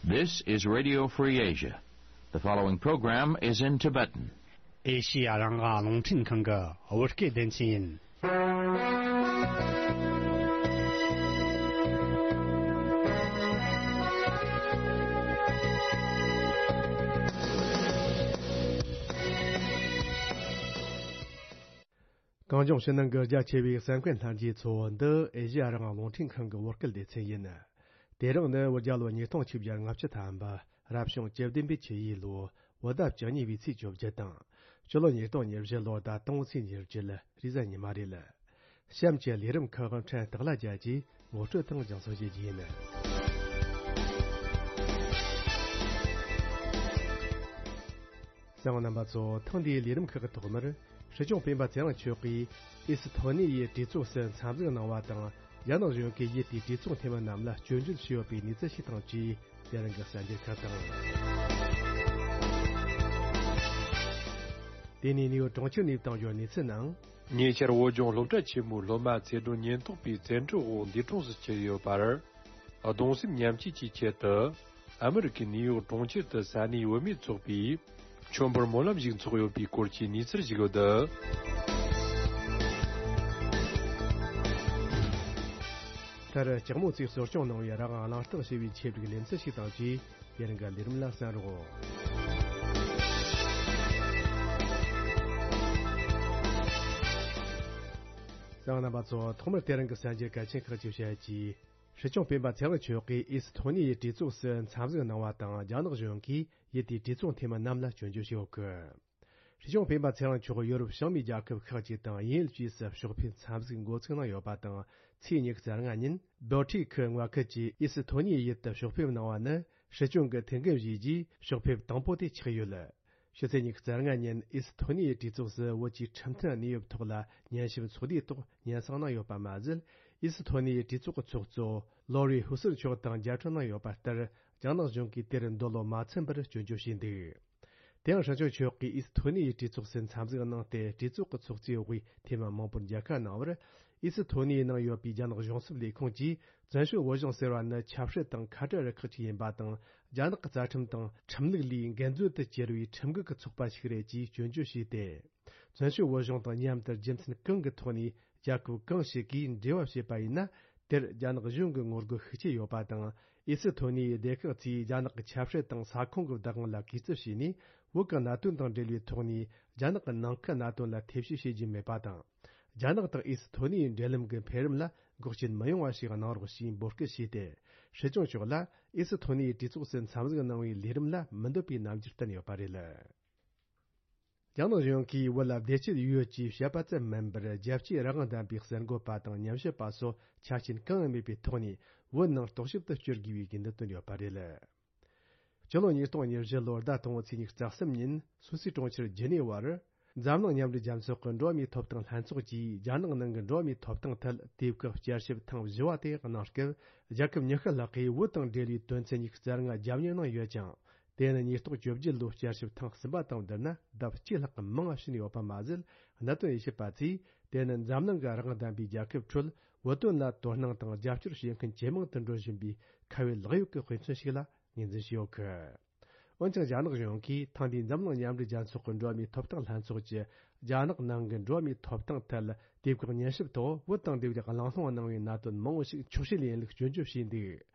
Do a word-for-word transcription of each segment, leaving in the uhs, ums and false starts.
This is Radio Free Asia. The following program is in Tibetan. ཨེ་ཤི་ཡ་རང་དབང་རླུང་འཕྲིན་ཁང་གི་བོད་སྐད་སྡེ་ཚན་ཡིན། གངས་ལྗོངས་ཕྱི་ནང་གི་རྒྱ་ཆེ་བའི་གསན་མཁན་ལྷན་རྒྱས་ཚོ། འདི་ཨེ་ཤི་ཡ་རང་དབང་རླུང་འཕྲིན་ཁང་གི་བོད་སྐད་སྡེ་ཚན་ཡིན། དེ་རིང་ནི་བོད་རྒྱལ་ལོ་ཉིས་སྟོང་ཆིག་བརྒྱ་ལྔ་བཅུ་ཐམ་པ། རབ་བྱུང་བཅུ་བདུན་པའི་ཆུ་ཡོས་ལོ། བོད་ཟླ་བཅུ་གཉིས་པའི་ཚེས་བཅོ་བརྒྱད་དང་། སྤྱི་ལོ་ཉིས་སྟོང་ཉེར་བཞི་ལོ་ཟླ་དང་པོའི་ཚེས་ཉེར་བརྒྱད། རེས་གཟའ་ཉི་མ་རེད། གཤམ་གྱི་ལས་རིམ་ཁག་ཕྲན་སྟག་ལྷ་རྒྱལ་གྱིས་ངོ་སྤྲོད་དང་སྦྱང་བརྩོན་བྱེད་རྒྱུ་ཡིན། གསན་པ་རྣམ་པ་ཚོ། ཐེངས་འདིའི་ལས་རིམ་ཁག་གི་ཐོག་མར། སྲིད་སྐྱོང་སྤེན་པ་ཚེ་རིང་མཆོག་གིས་ཨི་སི་ཐོ་ནི་ཡའི་གྲོས་ཚོགས་སུ་འཚམས་གཟིགས་གནང་བ་དང་། རྒྱ་ནག་གཞུང་གིས་ཡུལ་དེའི་གྲོས་ཚོགས་འཐུས་མི་རྣམས་ལ་སྐྱོན་བརྗོད་བྱས་ཡོད་པའི་གནས་ཚུལ་ཞིག་དང་བཅས། དེ་རིང་གི་གསར་འགྱུར་ཁག་དང་། དེ་ནས་ནིའུ་ཡོག་གྲོང་ཁྱེར་ནས་བཏང་ཡོད་གནས་ཚུལ་ནང་། ཉེ་ཆར་བོད་ལྗོངས་སློབ་གྲྭ་ཆེན་མོའི་སློབ་མ་ཚེ་སྒྲོན་ཉེན་རྟོག་པའི་བཙན་ཁྲིད་འོག་འདས་གྲོངས་སུ་གྱུར་ཡོད་པར། གདུང་སེམས་མཉམ་སྐྱེད་ཀྱི་ཆེད་དུ། ཨ་མི་རི་ཀའི་ནིའུ་ཡོག་གྲོང་ཁྱེར་དུ་ས་གནས་བུད་མེད་ཚོགས་པས། མཆོད་འབུལ་སྨོན་ལམ་ཞིག་འཚོགས་ཡོད་པའི་སྐོར་གྱི་གནས་ཚུལ་ཞིག་ཡོད། མཐར་ལྕགས་མོ་རྩིས་གསོ་སྐྱོང་གནང་བའི་རང་དབང་གླེང་སྟེགས་ཞེས་པའི་ཆེད་དུ་ལེ་ཚན་ཞིག་དང་བཅས། དེ་རིང་གི་ལས་རིམ་ལ་གསན་རོགས། གསན་པ་རྣམ་པ་ཚོ། ཐོག་མར་དེ་རིང་གི་གསར་འགྱུར་གལ་ཆེན་ཁག་ཅིག་བཤད་ཀྱིས། སྲིད་སྐྱོང་སྤེན་པ་ཚེ་རིང་མཆོག་གིས་ཨི་སི་ཐོ་ནི་ཡའི་གྲོས་ཚོགས་སུ་འཚམས་གཟིགས་གནང་བ་དང་། རྒྱ་ནག་གཞུང་གིས་ཡུལ་དེའི་གྲོས་ཚོགས་འཐུས་མི་རྣམས་ལ་སྐྱོན་བརྗོད་བྱས་ཡོད་སྐད། སྲིད་སྐྱོང་སྤེན་པ་ཚེ་རིང་མཆོག་ཡོ་རོབ་བྱང་མའི་རྒྱལ་ཁབ་ཁག་ཅིག་དང་ཡུན་རིང་བཅས་སུ་ཕྱོགས་ཕེབས་འཚམས་གཟིགས་འགོ་ཚུགས་གནང་ཡོད་པ་དང་། ཚེས་ཉི་ཤུ་རྩ་ལྔ་ཉིན་བྷོ་ཊི་ཁི་མངའ་ཁུལ་གྱི་ཨི་སི་ཐོ་ནི་ཡའི་ཡུལ་དུ་ཕྱོགས་ཕེབས་གནང་བ་ནི་སྲིད་སྐྱོང་གི་ཐུགས་འགན་བཞེས་རྗེས་ཕྱོགས་ཕེབས་དང་པོ་དེ་ཆགས་ཡོད། ཕྱི་ཚེས་ཉི་ཤུ་རྩ་ལྔ་ཉིན་ཨི་སི་ཐོ་ནི་ཡའི་གྲོས་ཚོགས་སུ་བོད་ཀྱི་ཁྲིམས་མཐུན་གནས་བབ་ཐོག་ལ་ཉན་ཞིབ་ཚོགས་འདུའི་ཐོག་སྙན་སེང་གནང་ཡོད་པ་མ་ཟད། ཨི་སི་ཐོ་ནི་ཡའི་གྲོས་ཚོགས་ཀྱི་ཚོགས་གཙོ་ལོ་རི་ཧུ་སུར་མཆོག་དང་མཇལ་འཕྲད་གནང་ཡོད་པ་ལྟར། རྒྱ་ནག་གཞུང་གིས་དེར་འདོད་བློ་མ་ཚིམ་པར་སྐྱོན་བརྗོད་བྱས་འདུག་དེ་ཡང་སྲིད་སྐྱོང་མཆོག་གིས་ཨི་སི་ཐོ་ནི་ཡའི་གྲོས་ཚོགས་སུ་འཚམས་གཟིགས་གནང་སྟེ། གྲོས་ཚོགས་ཀྱི་ཚོགས་གཙོའི་དབུས་འཐུས་མི་མང་པོར་མཇལ་ཁ་གནང་བར། ཨི་སི་ཐོ་ནི་ཡའི་ནང་ཡོད་པའི་རྒྱ་ནག་གཞུང་ཚབ་ལས་ཁུངས་ཀྱིས། བཙན་བྱོལ་བོད་གཞུང་ཟེར་བ་ནི་ཆབ་སྲིད་དང་ཁ་བྲལ་རུ་ཁག་ཅིག་ཡིན་པ་དང་། རྒྱ་ནག་གི་རྩ་ཁྲིམས་དང་ཁྲིམས་ལུགས་ལས་འགལ་འཛོལ་དུ་གྱུར་བའི་ཁྲིམས་འགལ་གྱི་ཚོགས་པ་ཞིག་རེད་ཅེས་སྐྱོན་བརྗོད་བྱས་ཏེ། བཙན་བྱོལ་བོད་གཞུང་དང་མཉམ་དུ་རྒྱུ་མཚན་གང་གི་ཐོག་ནས་རྒྱལ་ཁབ་གང་ཞིག་གིས་འབྲེལ་བ་བྱས་པ་ཡིན་ན། དེར་རྒྱ་ནག་གཞུང་གི་ངོ་རྒོལ་ཤུགས་ཆེ་ཡོད་པ་དང་། ཨི་སི་ཐོ་ནི་ཡའི་སྡེ་ཁག་ཚོས་རྒྱ་ནག་གི་ཆབ་སྲིད་དང་ས་ཁོངས་ཀྱི་བདག་དབང་ལ་གུས་བརྩི་བྱས་ནས། བོད་ཀྱི་གནད་དོན་དང་འབྲེལ་བའི་ཐོག་ནས་རྒྱ་ནག་གི་ནང་ཁུལ་གནད་དོན་ལ་ཐེ་བྱུས་བྱེད་རྒྱུ་མེད་པ་དང་། རྒྱ་ནག་དང་ཨི་སི་ཐོ་ནི་ཡའི་འབྲེལ་ལམ་གྱི་འཕེལ་རིམ་ལ་འགོག་རྐྱེན་མི་ཡོང་བ་ཞིག་གནང་རོགས་ཞེས་འབོད་སྐུལ་བྱས་ཏེ། སྲིད་སྐྱོང་མཆོག་ལ་ཨི་སི་ཐོ་ནི་ཡའི་གྲོས་ཚོགས་སུ་འཚམས་གཟིགས་གནང་བའི་ལས་རིམ་ལ་མི་འདོད་པའི་རྣམ་འགྱུར་བསྟན་ཡོད་པ་རེད། རྒྱ་ནག་གཞུང་གིས་བོད་ལ་བདེ་སྐྱིད་ཡོད་ཅེས་བཤད་པ་ཙམ་མིན་པར། རྒྱལ་སྤྱིའི་རང་དབང་ལྡན་པའི་གསར་འགོད་པ་དང་ཉམས་ཞིབ་པ་སོགས་ཆ་རྐྱེན་གང་ཡང་མེད་པའི་ཐོག་ནས་བོད་ནང་རྟོག་ཞིབ་ཏུ་བསྐྱོད་དགོས་པའི་དགོས་འདུན་བཏོན་ཡོད་པ་རེད། སྤྱི་ལོ་ཉིས་སྟོང་ཉེར་བཞི་ལོར་ཟླ་དང་པོའི་ཚེས་ཉི་ཤུ་རྩ་གསུམ་ཉིན་སུད་སིའི་གྲོང་ཁྱེར་ཇི་ནི་ཝར། འཛམ་གླིང་མཉམ་འབྲེལ་རྒྱལ་ཚོགས་ཀྱི་འགྲོ་བ་མིའི་ཐོབ་ཐང་ལྷན་ཚོགས་ཀྱིས་རྒྱ་ནག་ནང་གི་འགྲོ་བ་མིའི་ཐོབ་ཐང་ཐད་དུས་བཀག་བསྐྱར་ཞིབ་ཐེངས་བཞི་བ་དེ་གནང་སྐབས། རྒྱལ་ཁབ་ཉི་ཤུ་ལྷག་གིས་བོད་དང་འབྲེལ་བའི་དོན་ཚན་ཉི་ཤུ་རྩ་ལྔ་རྒྱབ་གཉེར་གནང་ཡོད་ཀྱང་། དེ་ནི་ཉིས་སྟོང་བཅོ་བརྒྱད་ལོའི་བསྐྱར་ཞིབ་ཐེངས་གསུམ་པ་དང་བསྡུར་ན་ལྡབ་གཅིག་ལྷག་གི་མང་བ་ཕྱིན་ཡོད་པ་མ་ཟད། གནད་དོན་དབྱེ་ཞིབ་པ་ཚོས་དེ་ནི་འཛམ་གླིང་གི་རང་དབང་ལྡན་པའི་རྒྱལ་ཁབ་ཁྲོད་བོད་དོན་ལ་དོ་སྣང་དང་རྒྱབ་སྐྱོར་བྱེད་མཁན་ཇེ་མང་དུ་འགྲོ་བཞིན་པའི་ཁ་བའི་ལག་གཡོག་གི་དཔེ་མཚོན་ཞིག་ལ་ངོས་འཛིན་བྱས་ཡོད་གི། འོན་ཀྱང་། རྒྱ་ནག་གཞུང་གིས་ཐེངས་འདིའི་འཛམ་གླིང་མཉམ་འབྲེལ་རྒྱལ་ཚོགས་ཀྱི་འགྲོ་བ་མིའི་ཐོབ་ཐང་ལྷན་ཚོགས་ཀྱི་རྒྱ་ནག་ནང་གི་འགྲོ་བ་མིའི་ཐོབ་ཐང་ཐད་དུས་བཀག་ཉན་ཞིབ་ཐོག་བོད་དང་འབྲེལ་བའི་གླེང་སློང་གནང་བའི་གནད་དོན་མང་བོ་ཞིག་འཁྱོག་བཤད་ལས་ཡིན་ལུགས་སྐྱོན་བརྗོད་བྱས་འདུག་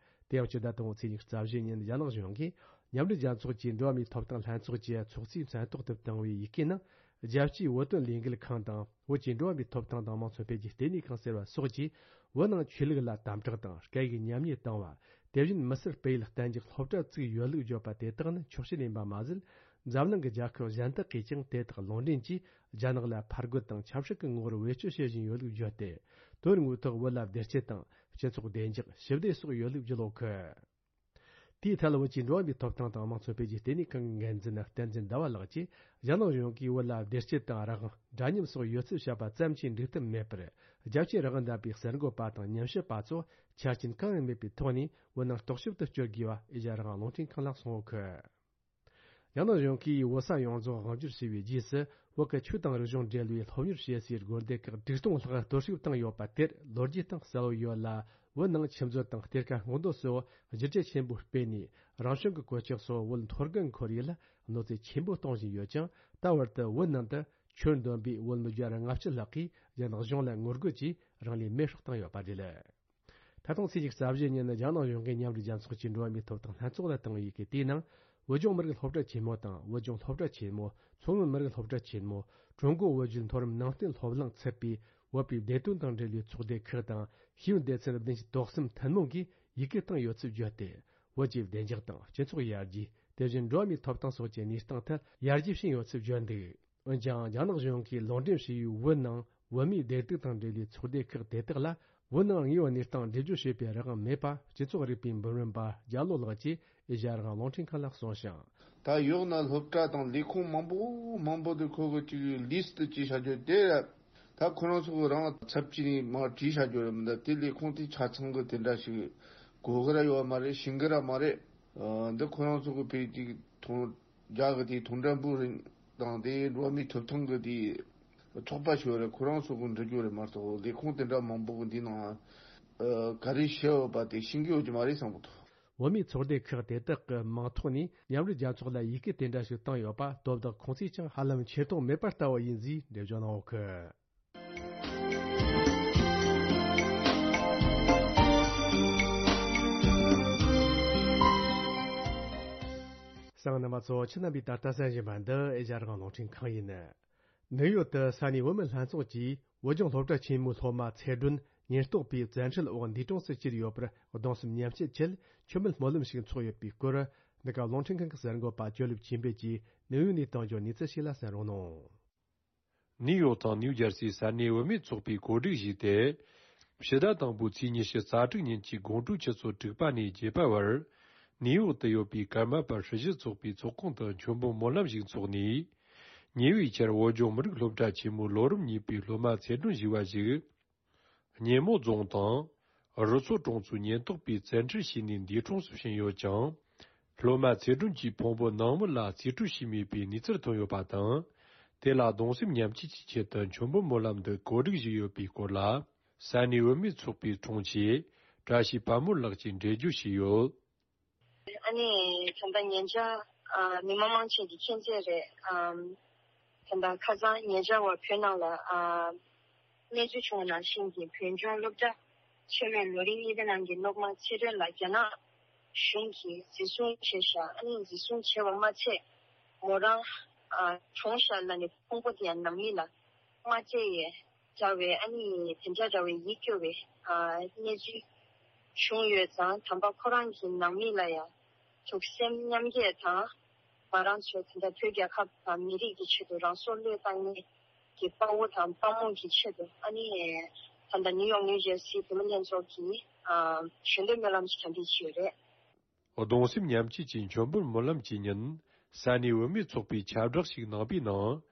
དེ་ཡང་། སྤྱི་ཟླ་དང་པོའི་ཚེས་ཉི་ཤུ་རྩ་བཞི་ཉིན་རྒྱ་ནག་གཞུང་གིས་མཉམ་འབྲེལ་རྒྱལ་ཚོགས་ཀྱི་འགྲོ་བ་མིའི་ཐོབ་ཐང་ལྷན་ཚོགས་ཀྱི་ཚོགས་གཙོའི་མཚན་ཐོག་ཏུ་བཏང་བའི་ཡི་གེ་ནང་། རྒྱལ་སྤྱིའི་བོད་དོན་ལས་འགུལ་ཁང་དང་། བོད་ཀྱི་འགྲོ་བ་མིའི་ཐོབ་ཐང་དང་དམངས་གཙོ་འཕེལ་རྒྱས་ལྟེ་གནས་ཁང་ཟེར་བ་སོགས་ཀྱིས་བོད་ནང་ཆོས་ལུགས་ལ་དམ་དྲག་དང་། སྐད་ཡིག་ཉམས་ཉེས་བཏང་བ། དེ་བཞིན་མི་སེར་སྤེལ་ཡུལ་གཏན་འཇགས་སློབ་གྲྭ་བཙུགས་ཡོད་ལུགས་བརྗོད་པ་དེ་དག་ནི་འཁྱོག་བཤད་ཡིན་པ་མ་ཟད། འཛམ་གླིང་གི་རྒྱལ་ཁབ་གཞན་དག་གིས་ཀྱང་དེ་དག་ལུང་འདྲེན་གྱིས་རྒྱ་ནག་ལ་ཕར་རྒོལ་དང་ཆབ་སྲིད་ཀྱི་ངོ་བོར་བེད་སྤྱོད་བྱེད་བཞིན་ཡོད་ལུགས་བརྗོད་དེ། དོན་དངོས་ཐོག་བོད་ལ་བདེ་སྐྱིད་དང་། སྤྱི་ཚོགས་བདེ་འཇགས། ཞི་བདེ་སོགས་ཡོད་ལུགས་བརྗོད་ཡོད་གི། དེའི་ཐད། བོད་ཀྱི་འགྲོ་བ་མིའི་ཐོབ་ཐང་དང་དམངས་གཙོ་འཕེལ་རྒྱས་ལྟེ་གནས་ཁང་གི་འགན་འཛིན་བསྟན་འཛིན་ཟླ་བ་ལགས་ཀྱིས། རྒྱ་ནག་གཞུང་གིས་བོད་ལ་བདེ་སྐྱིད་དང་རང་དབང་། འདྲ་མཉམ་སོགས་ཡོད་ཚུལ་བཤད་པ་ཙམ་གྱིས་འགྲིག་ཐབས་མེད་པར། རྒྱལ་སྤྱིའི་རང་དབང་ལྡན་པའི་གསར་འགོད་པ་དང་ཉམས་ཞིབ་པ་ཚོ་ཆ་རྐྱེན་གང་ཡང་མེད་པའི་ཐོག་ནས་བོད་ནང་རྟོག་ཞིབ་ཏུ་བསྐྱོད་དགོས་པ་ཨེ་ཤ་ཡ་རང་དབང་རླུང་འཕྲིན་ཁང་ལ་གསུངས་ཡོད་གི། རྒྱ་ནག་གཞུང་གིས་བོད་ས་ཡོངས་རྫོགས་དབང་བསྒྱུར་བྱས་པའི་རྗེས་སུ། བོད་ཀྱི་ཆོས་དང་རིག་གཞུང་འབྲེལ་བའི་སློབ་གཉེར་བྱེད་སའི་སྒོ་སྡེ་ཁག་དྲུག་སྟོང་ལྷག་གཏོར་བཤིག་བཏང་ཡོད་པ་དེར་ལོ་རྒྱུས་སྟེང་གསལ་བོ་ཡོད་ལ། བོད་ནང་ཆུ་མཛོད་དང་གཏེར་ཁ་སྔོག་འདོན་སོགས་བསྒྱུར་བཅོས་ཆེན་པོ་སྤེལ་ནས། རང་བྱུང་གི་གོད་ཆག་སོགས་བོད་མཐོ་སྒང་ཁོར་ཡུག་ལ་གནོད་འཚེ་ཆེན་པོ་གཏོང་བཞིན་ཡོད་ཅིང་། ད་བར་དུ་བོད་ནང་དུ་ཆོས་འདོན་པའི་བོད་མི་བརྒྱ་དང་ལྔ་བཅུ་ལྷག་གིས་རྒྱ་ནག་གཞུང་ལ་ངོ་རྒོལ་གྱིས་རང་ལུས་མེར་སྲེག་བཏང་ཡོད་པ་རེད། ད་ཐེངས་ཚེས་ཉི་ཤུ་རྩ་བཞི་ཉིན་རྒྱ་ནག་གཞུང་གིས་མཉམ་འབྲེལ་རྒྱལ་ཚོགས་ཀྱི་འགྲོ་བ་མིའི་ཐོབ་ཐང་ལྷན་ཚོགས་ལ་བཏང་བའི་ཡི་གེ་དེའི་ནང་། བོད་ལྗོངས་མི་རིགས་སློབ་གྲྭ་ཆེན་མོ་དང་། བོད་ལྗོངས་སློབ་གྲྭ་ཆེན་མོ། མཚོ་སྔོན་མི་རིགས་སློབ་གྲྭ་ཆེན་མོ། ཀྲུང་གོ་བོད་བརྒྱུད་མཐོ་རིམ་ནང་བསྟན་སློབ་གླིང་ཚུད་པའི་བོད་པའི་བདེ་དོན་དང་འབྲེལ་བའི་ཚོགས་སྡེ་ཁག་དང་། ཤེས་ཡོན་སྡེ་ཚན་བདུན་ཅུ་དོན་གསུམ་ཐུན་མོང་གིས་ཡི་གེ་བཏང་ཡོད་ཚུལ་བརྗོད་དེ། བོད་ཀྱི་བདེ་འཇགས་དང་སྤྱི་ཚོགས་ཡར་རྒྱས། དེ་བཞིན་འགྲོ་བ་མིའི་ཐོབ་ཐང་སོགས་ཀྱི་གནས་སྟངས་ཐད་ཡར་རྒྱས་ཕྱིན་ཡོད་ཚུལ་བརྗོད་འདུག་འོན་ཀྱང་། རྒྱ་ནག་གཞུང་གིས་ལུང་འདྲེན་བྱས་ཡོད་བོད་ནང་བོད་མིའི་བདེ་སྡུག་དང་འབྲེལ་བའི་ཚོགས་སྡེ་ཁག་དེ་དག་ལ་བོད་ནང་དངོས་ཡོད་གནས་སྟངས་འགྲེལ་བརྗོད་བྱེད་པའི་རང་དབང་མེད་པ། སྤྱི་ཚོགས་རིག་པའི་འབུམ་རམས་པ་རྒྱ་ལོ་ལགས་ཀྱིས་ཨེ་ཤ་ཡ་རང་དབང་རླུང་འཕྲིན་ཁང་ལ་གསུངས་ཤིང་། ད་ཡོད་ན་སློབ་གྲྭ་དང་ལས་ཁུངས་མང་པོ་མང་པོ་དེ་ཁོ་གི་ཅིག་ལིས་ཊི་ཅིག་བྱ་རྒྱུ་དེ། ད་ཁོ་རང་ཚོ་གི་རང་ཚབ་ཀྱིས་མར་བྲིས་བྱ་རྒྱུ་རེད་མི་འདུག་དེ་ལས་ཁུངས་དེ་ཆ་ཚང་གི་དེ་འདྲ་ཞིག་དགོས་གི་ར་ཡོད་མ་རེད། ཤེས་གི་ར་མ་རེད། འདི་ཁོ་རང་ཚོ་གི་བོད་ཀྱི་ཐོང་རྒྱ་གི་དེ་ཐོང་ཀྲན་པུའུ་རིང་དང་དེ་འགྲོ་བ་མིའི་ཐོབ་ཐང་གི་དེ་ཚོགས་པ་ཞིག་ཡོད་རེད། ཁོ་རང་ཚོ་གི་འབྲི་རྒྱུ་རེད་མ་གཏོགས་ལས་ཁུངས་དེ་འདྲ་མང་པོ་གི་འདི་ནང་ག་རེ་བཤད་ཡོད་པ་དེ་ཤེས་ཀྱི་ཡོད་ཀྱི་མ་རེད་བསམ་གི་འདུག་བོད་མིའི་ཚོགས་སྡེ་ཁག་དེ་དག་གི་མིང་ཐོག་ནས་མཉམ་འབྲེལ་རྒྱལ་ཚོགས་ལ་ཡི་གེ་དེ་འདྲ་ཞིག་བཏང་ཡོད་པ་དོ་བདག་ཁོང་ཚོས་ཀྱང་ཧ་ལམ་ཆེ་མཐོང་མེད་པ་ལྟ་བུ་ཡིན་ཞེས་འགྲེལ་བརྗོད་གནང་ཡོད་གི། གསན་མཁན་རྣམ་པ་ཚོ། ཁྱེད་རྣམ་པས་ད་ལྟ་གསན་བཞིན་པ་འདི་ཨེ་ཤ་ཡ་རང་དབང་རླུང་འཕྲིན་ཁང་ཡིན། ནིའུ་ཡོག་ཏུ་ས་གནས་བོད་མི་ལྷན་ཚོགས་ཀྱིས་བོད་ལྗོངས་སློབ་གྲྭ་ཆེན་མོའི་སློབ་མ་ཚེ་སྒྲོན་ཉེན་རྟོག་པས་བཙན་ཁྲིད་འོག་འདས་གྲོངས་སུ་གྱུར་ཡོད་པར་གདུང་སེམས་མཉམ་སྐྱེད་ཆེད་མཆོད་མེ་སྨོན་ལམ་ཞིག་འཚོགས་ཡོད་པའི་སྐོར། འདི་ག་རླུང་འཕྲིན་ཁང་གི་གསར་འགོད་པ་ཅོ་ལེབ་ཆོས་འཕེལ་གྱིས་ནིའུ་ཡོག་ནས་བཏང་རྒྱུ་གནས་ཚུལ་ཞིག་ལ་གསན་རོགས་གནང་། ནིའུ་ཡོག་དང་ནིའུ་ཇར་སིའི་ས་གནས་བུད་མེད་ཚོགས་པས་གོ་སྒྲིག་བྱས་ཏེ། ཕྱི་ཟླ་དང་པོའི་ཚེས་ཉི་ཤུ་རྩ་དྲུག་ཉིན་གྱི་དགོང་དྲོའི་ཆུ་ཚོད་དྲུག་པ་ནས་བརྒྱད་པ་བར། ནིའུ་ཡོག་ཏུ་ཡོད་པའི་ཀརྨ་པ་སྲི་ཞུ་ཚོགས་པའི་ཚོགས་ཁང་དུ་མཆོད་འབུལ་སྨོན་ལམ་ཞིག་འཚོགས་ནས། ཉེ་བའི་ཆར་བོད་ལྗོངས་མི་རིགས་སློབ་གྲྭ་ཆེན་མོའི་ལོ་རིམ་གཉིས་པའི་སློབ་མ་ཚེ་སྒྲོན་ཞུ་བ་ཞིག་ཉེ་མོ་རྫོང་དང་། རུ་མཚོ་གྲོང་ཚོའི་ཉེན་རྟོག་པས་བཙན་ཁྲིད་བྱས་ནས་འདས་གྲོངས་སུ་ཕྱིན་ཡོད་ཅིང་། སློབ་མ་ཚེ་སྒྲོན་གྱི་ཕུང་པོ་ནང་མི་ལ་རྩིས་སྤྲོད་བྱས་མེད་པའི་གནས་ཚུལ་ཐོན་ཡོད་པ་དང་། དེ་ལ་གདུང་སེམས་མཉམ་སྐྱེད་ཀྱི་ཆེད་དུ་མཆོད་འབུལ་སྨོན་ལམ་འདི་གོ་སྒྲིག་བྱས་ཡོད་པའི་སྐོར་ལ། ས་གནས་བུད་མེད་ཚོགས་པའི་དྲུང་ཆེ་བཀྲ་ཤིས་དཔལ་མོ་ལགས་ཀྱིས་འགྲེལ་བརྗོད་བྱས་ཡོད། ཨ་ནི་ད་ལྟ་ཉེ་ཆར་ཨ་མི་མང་མང་ཆེ་གིས་མཁྱེན་གསལ་རེད། ཨམ་ད་ལྟ་ཁ་སང་ཉེ་ཆར་བར་བོད་ནང་ལ་ཨ་གནས་ཚུལ་བྱུང་བ་ནང་བཞིན་གྱི་བོད་ལྗོངས་སློབ་གྲྭ་ཆེན་མོའི་ལོ་རིམ་གཉིས་པའི་ནང་གི་སློབ་མ་ཚེ་སྒྲོན་ལགས་རྒྱ་ནག་གཞུང་གིས་འཛིན་བཟུང་བྱས་ཤག་ཨ་ནི་འཛིན་བཟུང་བྱས་པ་མ་ཚད་མོ་རང་ཨ་གྲོངས་ཤག་ལབ་ནས་ཕུང་པོ་དེ་ཡང་ནང་མི་ལ་མ་སྤྲད་ཡས། འདྲ་བའི་ཨ་ནི་དེ་འདྲ་འདྲ་བའི་ཡིད་སྐྱོ་བའི་ཨ་གནས་ཚུལ་བྱུང་ཡོད་ཙང་། དམ་པ་ཁོ་རང་གི་ནང་མི་ལ་ཡང་ཐུགས་སེམས་མཉམ་སྐྱེད་དང་། ང་རང་ཚོ་དེ་འདྲ་བོད་རྒྱལ་ཁབ་དང་མི་རིགས་ཀྱི་ཆེད་དུ་རང་སྲོག་བློས་བཏང་མཁན་གྱི་དཔའ་བོ་དང་དཔའ་མོ་གི་ཆེད་དུ། ཨ་ནི་ད་ལྟ་ནིའུ་ཡོག་ནིའུ་ཇར་སི་བུད་མེད་ལྷན་ཚོགས་ཀྱིས་ཨ་ཞལ་འདོན་སྨོན་ལམ་ཞིག་གྲ་སྒྲིག་བྱས་ཡོད་རེད། གདུང་སེམས་མཉམ་སྐྱེད་ཀྱི་མཆོད་འབུལ་སྨོན་ལམ་གྱི་ཉིན། ས་གནས་བུད་མེད་ཚོགས་པས་ཁྱབ་བསྒྲགས་ཤིག་གནང་པའི་ནང་།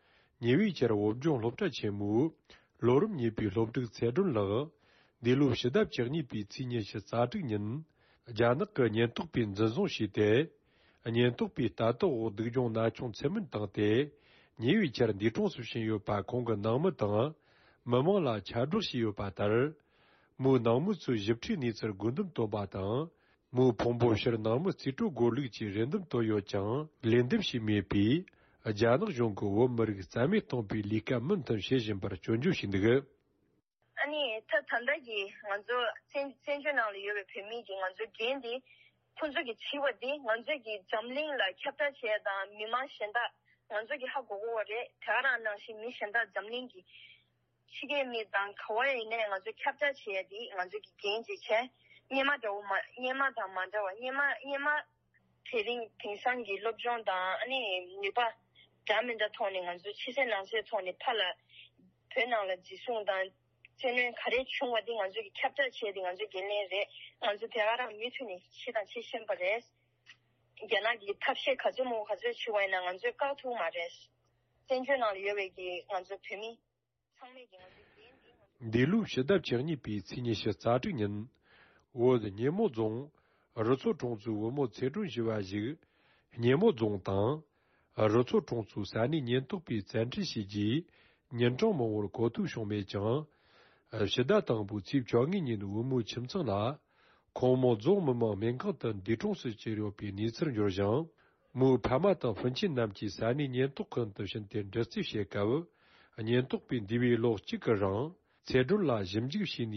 ཉེ་བའི་ཆར་བོད་ལྗོངས་སློབ་གྲྭ་ཆེན་མོའི་ལོ་རིམ་གཉིས་པའི་སློབ་ཕྲུག་ཚེ་སྒྲོན་ལགས་འདས་ལོའི་ཕྱི་ཟླ་བཅུ་གཉིས་པའི་ཚེས་ཉི་ཤུ་རྩ་དྲུག་ཉིན། རྒྱ་ནག་གི་ཉེན་རྟོག་པས་འཛིན་བཟུང་བྱས་ཏེ། ཉེན་རྟོག་པས་ལྟ་རྟོག་འོག་སྡུག་སྦྱོང་ན་ཆུང་ཚད་མིན་བཏང་སྟེ། ཉེ་བའི་ཆར་འདས་གྲོངས་སུ་ཕྱིན་ཡོད་པ་ཁོང་གི་ནང་མི་དང་མི་མང་ལ་ཁྱབ་བསྒྲགས་བྱས་ཡོད་པ་ལྟར། མོའི་ནང་མི་ཚོས་ཞིབ་ཕྲའི་གནས་ཚུལ་དགོས་འདུན་བཏོན་པ་དང་། མོའི་ཕུང་པོ་ཕྱིར་ནང་མི་རྩིས་སྤྲོད་དགོས་ལུགས་ཀྱི་རེ་འདུན་བཏོན་ཡོད་ཀྱང་། ལན་འདེབས་བྱས་མེད་པས། རྒྱ་ནག་གཞུང་གིས་བོད་མི་རིགས་རྩ་མེད་གཏོང་པའི་ལས་ཀ་མུ་མཐུད་བྱེད་བཞིན་པར་སྐྱོན་བརྗོད་བྱས་འདུག་ཨ་ནི་ད་ད་ལྟ་གི་ང་ཚོ་བཙན་བཙན་བྱོལ་ནང་ལ་ཡོད་པའི་བོད་མི་གི་ང་ཚོ་འགན་འདི། ཁོང་ཚོ་གི་བྱས་པ་འདི་ང་ཚོ་གི་འཛམ་གླིང་ལ་ཁྱབ་བསྒྲགས་བྱས་དང་མི་མང་གཞན་དག་ང་ཚོ་གི་ཧ་གོ་གོ་བ་རེད། དེ་ག་རང་ནང་བཞིན་མི་གཞན་དག་འཛམ་གླིང་གི་ཕྱི་རྒྱལ་མི་དང་ག་བ་ཡིན་ནའི་ང་ཚོ་ཁྱབ་བསྒྲགས་བྱས་ཏེ་ང་ཚོ་གི་འགན་ཅིག་བྱས། སྔོན་མ་འདྲ་བོ་མ་སྔོན་མ་དང་མ་འདྲ་བ། སྔོན་མ་སྔོན་མ་དེ་རིང་དེང་སང་གི་སློབ་སྦྱོང་དང་ཨ་ནི་ནུས་པ་འདྲ་མི་འདྲ་ཐོག་ནས་ང་ཚོ་ཕྱི་གསལ་ནང་གསལ་ཐོག་ནས་ཕར་ལ་བོད་ནང་ལ་འཛིན་བཟུང་དང་བཙན་གནོན་ག་རེ་བྱུང་བ་དེ་ང་ཚོ་གི་ཁྱབ་བསྒྲགས་བྱས་ཏེ་ང་ཚོ་འགན་ལེན་རེད། ང་ཚོ་དེ་ག་རང་མུ་མཐུད་ནས་བྱེད་དང་བྱེད་བཞིན་པ་རེད། རྒྱ་ནག་གི་ཐབས་ཤེས་ག་ཚོད་མང་པོ་ག་ཚོད་བྱས་པ་ཡིན་ན་ང་ཚོས་བཀག་ཐུབ་མ་རེད། བཙན་བྱོལ་ནང་ལ་ཡོད་པའི་གི་ང་ཚོ་བོད་མི་ཚང་མས་ཀྱི་ང་ཚོ་འགན་འདི་ང་ཚོ། འདས་ལོའི་ཕྱི་ཟླ་བཅུ་གཉིས་པའི་ཚེས་ཉི་ཤུ་རྩ་དྲུག་ཉིན། བོད་སྙེ་མོ་རྫོང་རུ་མཚོ་གྲོང་ཚོའི་བུ་མོ་ཚེ་སྒྲོན་ཞུ་བ་ཞིག་སྙེ་མོ་རྫོང་དང་ རུ་ཚོགས་གྲོང་ཚོའི་ས་གནས་ཉེན་རྟོག་པས་བཙན་ཁྲིད་བྱས་རྗེས། ཉིན་གྲངས་མང་པོར་གོ་ཐོས་བྱུང་མེད་ཀྱང་། ཕྱི་ཟླ་དང་པོའི་ཚེས་བཅོ་ལྔའི་ཉིན་བུ་མོའི་ཁྱིམ་ཚང་ལ། ཁོང་མོ་རྫོང་མི་དམངས་སྨན་ཁང་དུ་འདས་གྲོངས་སུ་གྱུར་ཡོད་པའི་གནས་ཚུལ་འབྱོར་ཞིང་། མོའི་ཕ་མ་དང་སྤུན་མཆེད་རྣམས་ཀྱིས་ས་གནས་ཉེན་རྟོག་ཁང་དུ་ཕྱིན་ཏེ་འདྲི་རྩད་བྱེད་སྐབས། ཉེན་རྟོག་པས་འདས་པའི་ལོ་གཅིག་གི་རིང་། ཚེ་སྒྲོན་ལ་ཞིབ་འཇུག་བྱས་ནས་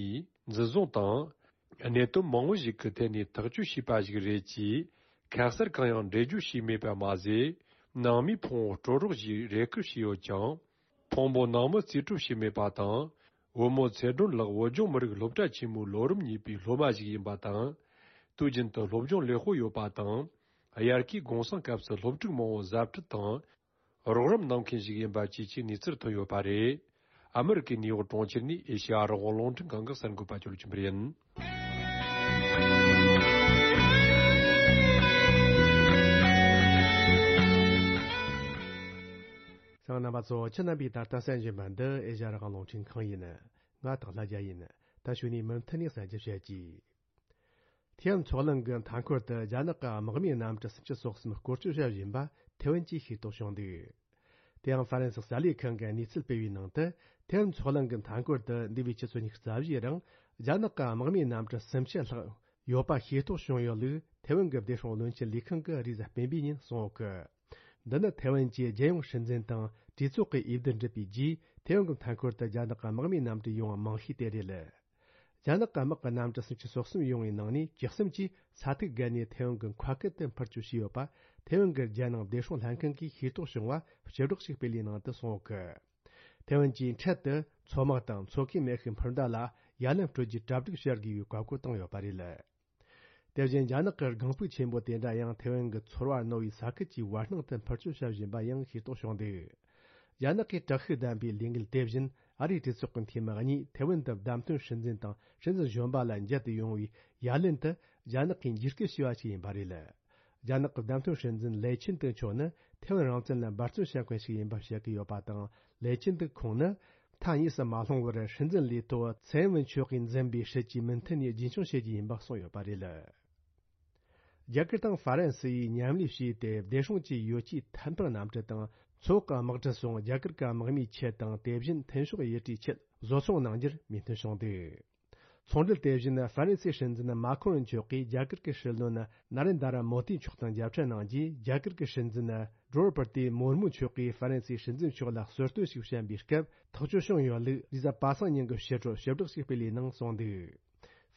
འཛིན་བཟུང་དང་། གནད་དོན་མང་བོ་ཞིག་གི་ཐད་ནས་ཐག་གཅོད་བྱས་པ་ཞིག་རེད་ཅེས། ཁ་གསལ་གང་ཡང་འགྲེལ་བརྗོད་བྱས་མེད་པ་མ་ཟད། ནང་མིའི་ཕུང་བོ་སྤྲོད་རོགས་ཞེས་རེ་སྐུལ་བྱས་ཡོད་ཀྱང་། ཕུང་པོ་ནང་མི་རྩིས་སྤྲོད་བྱས་མེད་པ་དང་། བུ་མོ་ཚེ་སྒྲོན་ལགས་བོད་ལྗོངས་མི་རིགས་སློབ་གྲྭ་ཆེན་མོའི་ལོ་རིམ་གཉིས་པའི་སློབ་མ་ཞིག་ཡིན་པ་དང་། དུས་རྒྱུན་དུ་སློབ་སྦྱོང་ལེགས་པོ་ཡོད་པ་དང་། དབྱར་ཁའི་གུང་སེང་སྐབས་སུ་སློབ་ཕྲུག་མང་བོ་གཟབ་ཁྲིད་དང་། རོགས་རམ་གནང་མཁན་ཞིག་ཡིན་པ་བཅས་ཀྱི་གནས་ཚུལ་ཐོན་ཡོད་པ་རེད། ཨ་མི་རི་ཀའི་ནིའུ་ཡོག་གྲོང་ཁྱེར་ནས་ཨེ་ཤེ་ཡ་རང་དབང་རླུང་འཕྲིན་ཁང་གི་གསར་འགོད་པ་ཇོ་ལེ་ཆོས་འཕེལ་ཡིན། གསན་མཁན་རྣམ་པ་ཚོ། ཁྱེད་རྣམ་པས་ད་ལྟ་གསན་བཞིན་པ་འདི་ཨེ་ཤེ་ཡ་རང་དབང་རླུང་འཕྲིན་ཁང་ཡིན། ང་སྟག་ལྷ་རྒྱལ་ཡིན། ད་གཞུག་ནས་མུ་མཐུད་ནས་གསན་རྒྱུ་བྱེད་ཀྱི། ཐེ་ཝན་མཚོ་གླིང་གི་མཐའ་འཁོར་དུ་རྒྱ་ནག་གི་དམག་མིའི་གནམ་གྲུ་སུམ་ཅུ་སོ་གསུམ་སྐོར་སྐྱོད་བྱ་བཞིན་པ་ཐེ་ཝན་གྱིས་ཤེས་རྟོགས་བྱུང་འདུག། དེ་ཡང་ཧྥ་རན་སི་གསར་ལས་ཁང་གིས་གནས་ཚུལ་སྤེལ་བའི་ནང་དུ། ཐེ་ཝན་མཚོ་གླིང་གི་མཐའ་འཁོར་དུ་འདས་པའི་ཆུ་ཚོད་ཉི་ཤུ་རྩ་བཞིའི་རིང་རྒྱ་ནག་གི་དམག་མིའི་གནམ་གྲུ་སུམ་ཅུ་ལྷག་ཡོད་པ་ཤེས་རྟོགས་བྱུང་ཡོད་ལུགས་ཐེ་ཝན་གྱི་བདེ་སྲུང་བློན་ཆེན་ལས་ཁང་གིས་རེས་གཟའ་སྤེན་པའི་ཉིན་གསུངས་ཡོད་གི། འདི་ནི་ཐེ་ཝན་གྱི་རྒྱལ་ཡོངས་སྲིད་འཛིན་དང་གྲོས་ཚོགས་ཀྱི་འོས་བསྡུ་འགྲུབ་པའི་རྗེས་ཐེ་ཝན་གྱི་མཐའ་འཁོར་དུ་རྒྱ་ནག་གི་དམག་མིའི་གནམ་གྲུ་ཡོང་བ་མང་ཤོས་དེ་རེད། རྒྱ་ནག་གི་དམག་གི་གནམ་གྲུ་སུམ་ཅུ་སོ་གསུམ་ཡོང་བའི་ནང་ནས་བཅུ་གསུམ་གྱིས་ས་ཐིག་བརྒལ་ནས་ཐེ་ཝན་གྱི་མཁའ་ཁུལ་དུ་འཕུར་སྐྱོད་བྱས་ཡོད་པ་ཐེ་ཝན་གྱི་རྒྱལ་ནང་བདེ་སྲུང་ལྷན་ཁང་གིས་ཤེས་རྟོགས་བྱུང་བ་སྤྱི་སྒྲོག་ཅིག་སྤེལ་བའི་ནང་དུ་གསུངས་ཡོད་གི། ཐེ་ཝན་གྱིས་འཕྲལ་དུ་མཚོ་དམག་དང་མཚོ་ཁའི་མེ་ཤུགས་འཕུར་མདའ་ལ་ཡ་ལན་སྤྲོད་རྒྱུའི་གྲ་སྒྲིག་བྱ་དགོས་པའི་བཀའ་བཀོད་བཏང་ཡོད་པ་རེད། དེ་བཞིན་རྒྱ་ནག་གི་སྒང་སྤུག་ཆེན་པོ་དེ་འདྲ་ཡང་ཐེ་ཝན་གྱི་ཚོར་བ་རྣོ་བའི་ས་ཁུལ་གྱི་བར་སྣང་དུ་འཕུར་སྐྱོད་བྱ་བཞིན་པ་ཡང་ཤེས་རྟོགས་བྱུང་འདུག། རྒྱ་ནག་གིས་དྲག་ཤུགས་ལྡན་པའི་ལས་འགུལ་དེ་བཞིན་ཨ་རིའི་གྲོས་ཚོགས་ཀྱི་འཐུས་མི་གཉིས་ཐེ་ཝན་དུ་བདམས་ཐོན་སྲིད་འཛིན་དང་སྲིད་འཛིན་གཞོན་པ་ལ་མཇལ་དུ་ཡོང་བའི་ཡ་ལན་དུ་རྒྱ་ནག་གིས་འཇིགས་སྐུལ་བྱས་པ་ཞིག་ཡིན་པ་རེད། རྒྱ་ནག་གི་བདམས་ཐོན་སྲིད་འཛིན་ལེ་ཆིན་ཏེ་མཆོག་ནི་ཐེ་ཝན་རང་བཙན་ལ་འབད་བརྩོན་བྱེད་མཁན་ཞིག་ཡིན་པ་བཤད་ཀྱི་ཡོད་པ་དང་། ལེ་ཆིན་ཏེ་ཁོང་ནི་མཐའ་གཉིས་སུ་མ་ལྷུང་བར་སྲིད་འཛིན་ལས་ཐོག་ཚེ་ཨེན་ཝེན་ཆོས་ཀྱིས་འཛིན་པའི་སྲིད་ཇུས་མུ་མཐུད་ནས་རྒྱུན་འཁྱོངས་བྱེད་རྒྱུ་ཡིན་པ་གསུངས་ཡོད་པ་རེད། རྒྱ་གར་དང་ཧྥ་རན་སི་ཡིས་མཉམ་ལས་བྱས་ཏེ་བདེ་སྲུང་གི་ཡོ་ཆས་ཐད་འཕུར་གནམ་གྲུ་དང་མཚོ་འོག་གི་དམག་གྲུ་སོགས་རྒྱ་གར་གྱི་དམག་མིའི་ཆེད་དང་དེ་བཞིན་ཐོན་ཤོག་ཡུལ་གྲུའི་ཆེད་བཟོ་ཚོང་གནང་རྒྱུར་མོས་མཐུན་བྱུང་འདུག། ཚོང་འབྲེལ་དེ་བཞིན་ཧྥ་རན་སིའི་སྲིད་འཛིན་མཱ་ཁོ་རོན་མཆོག་གིས་རྒྱ་གར་གྱི་སྲིད་བློན་ན་རེན་དྲ་མོ་དི་མཆོག་དང་མཇལ་འཕྲད་གནང་རྗེས། རྒྱ་གར་གྱི་སྲིད་འཛིན་ཌྲོ་པར་ཏི་མུར་མུ་མཆོག་གིས་ཧྥ་རན་སིའི་སྲིད་འཛིན་མཆོག་ལ་གསོལ་སྟོན་ཞིག་བྱིན་པའི་སྐབས་ཐག་གཅོད་བྱུང་ཡོད་ལུགས་རེས་གཟའ་པ་སངས་ཉིན་གྱི་ཕྱི་དྲོ་ཞིབ་བསྒྲགས་ཤིག་སྤེལ་བའི་ནང་གསུངས་འདུག།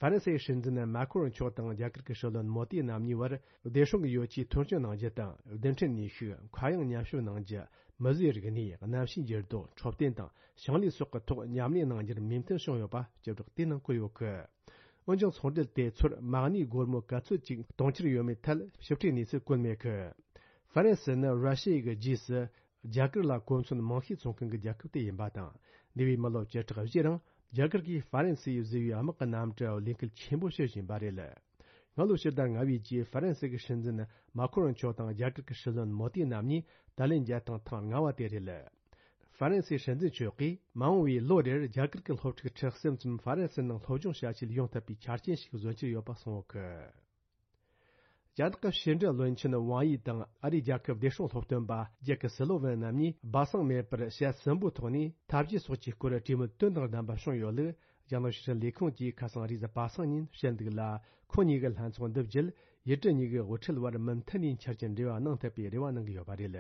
ཧྥ་རན་སིའི་སྲིད་འཛིན་མཱ་ཁོ་རོན་མཆོག་དང་རྒྱ་གར་གྱི་སྲིད་བློན་མོ་དི་རྣམ་གཉིས་བར་བདེ་སྲུང་གི་ཡོ་ཆས་ཐོན་སྐྱེད་གནང་རྒྱུ་དང་། རྡུལ་ཕྲན་ནུས་ཤུགས། མཁའ་དབྱིངས་མཉམ་ཞབས་གནང་རྒྱུ། མི་བཟོས་རིག་གནས། གནམ་གཤིས་འགྱུར་ལྡོག་འཕྲོད་བསྟེན་དང་ཞིང་ལས་སོགས་ཀྱི་ཐོག་མཉམ་ལས་གནང་རྒྱུར་མོས་མཐུན་བྱུང་ཡོད་པ་ཞིབ་བསྒྲགས་དེའི་ནང་བཀོད་ཡོད་གི། འོན་ཀྱང་ཚོང་འབྲེལ་དེ་ཚོར་མ་གནས་སྒོར་མོ་ག་ཚོད་ཅིག་གཏོང་འཆར་ཡོད་མེད་ཐད་ཞིབ་ཕྲའི་གནས་ཚུལ་བཀོད་མེད་གི། ཧྥ་རན་སི་ནི་ར་ཤི་ཡའི་རྗེས་སུ་རྒྱ་གར་ལ་གོ་མཚོན་མང་ཤོས་འཚོང་མཁན་གྱི་རྒྱལ་ཁབ་དེ་ཡིན་པ་དང་། འདས་པའི་མི་ལོ་བཅུ་ཕྲག་བཞིའི་རིང་རྒྱ་གར་གྱིས་ཧྥ་རན་སིས་བཟོས་པའི་དམག་གི་གནམ་གྲུ་ལས་འགུལ་ཆེན་པོ་བྱེད་བཞིན་པ་རེད། སྔ་ལོ་ཕྱི་ཟླ་ལྔ་པའི་རྗེས་ཧྥ་རན་སི་གི་སྲིད་འཛིན་མཱ་ཁོ་རོན་མཆོག་དང་རྒྱ་གར་གྱི་སྲིད་བློན་མོ་དི་རྣམ་གཉིས་ཏཱ་ལན་མཇལ་སྟངས་ཐེངས་ལྔ་པ་དེ་རེད། ཧྥ་རན་སིའི་སྲིད་འཛིན་མཆོག་གིས་མ་འོངས་པའི་ལོ་རེར་རྒྱ་གར་གྱི་སློབ་ཕྲུག་ཁྲི་གསུམ་ཙམ་ཧྥ་རན་སིའི་ནང་སློབ་སྦྱོང་བྱ་ཆེད་ཡོང་ཐུབ་པའི་ཆ་རྐྱེན་ཞིག་བཟོ་འཆར་ཡོད་པ་གསུངས་ཡོད་གི། རྒྱ་ནག་གི་ཕྱི་འབྲེལ་བློན་ཆེན་ཝང་ཡི་དང་ཨ་རིའི་རྒྱལ་ཁབ་བདེ་སྲུང་སློབ་སྟོན་པ་ཇེ་ཀི་སི་ལོ་ཝན་རྣམ་གཉིས་སྦ་གསང་མེད་པར་ཞལ་གསུམ་པོའི་ཐོག་ནས་འཐབ་ཇུས་སོགས་ཀྱི་སྐོར་གྲོས་མོལ་དོན་དང་ལྡན་པ་བྱུང་ཡོད་ལུགས་རྒྱ་ནག་ཕྱི་སྲིད་ལས་ཁུངས་ཀྱིས་ཁ་སང་རེས་གཟའ་པ་སངས་ཉིན་བཤད་འདུག་ལ། ཁོང་གཉིས་ཀྱི་ལྷན་ཚོགས་འདི་བརྒྱུད་ཡུལ་གྲུ་གཉིས་ཀྱི་དབུ་ཁྲིད་བར་མུ་མཐུད་ནས་འཆར་གྱི་འབྲེལ་བ་གནང་ཐུབ་པའི་རེ་བ་གནང་གི་ཡོད་པ་རེད།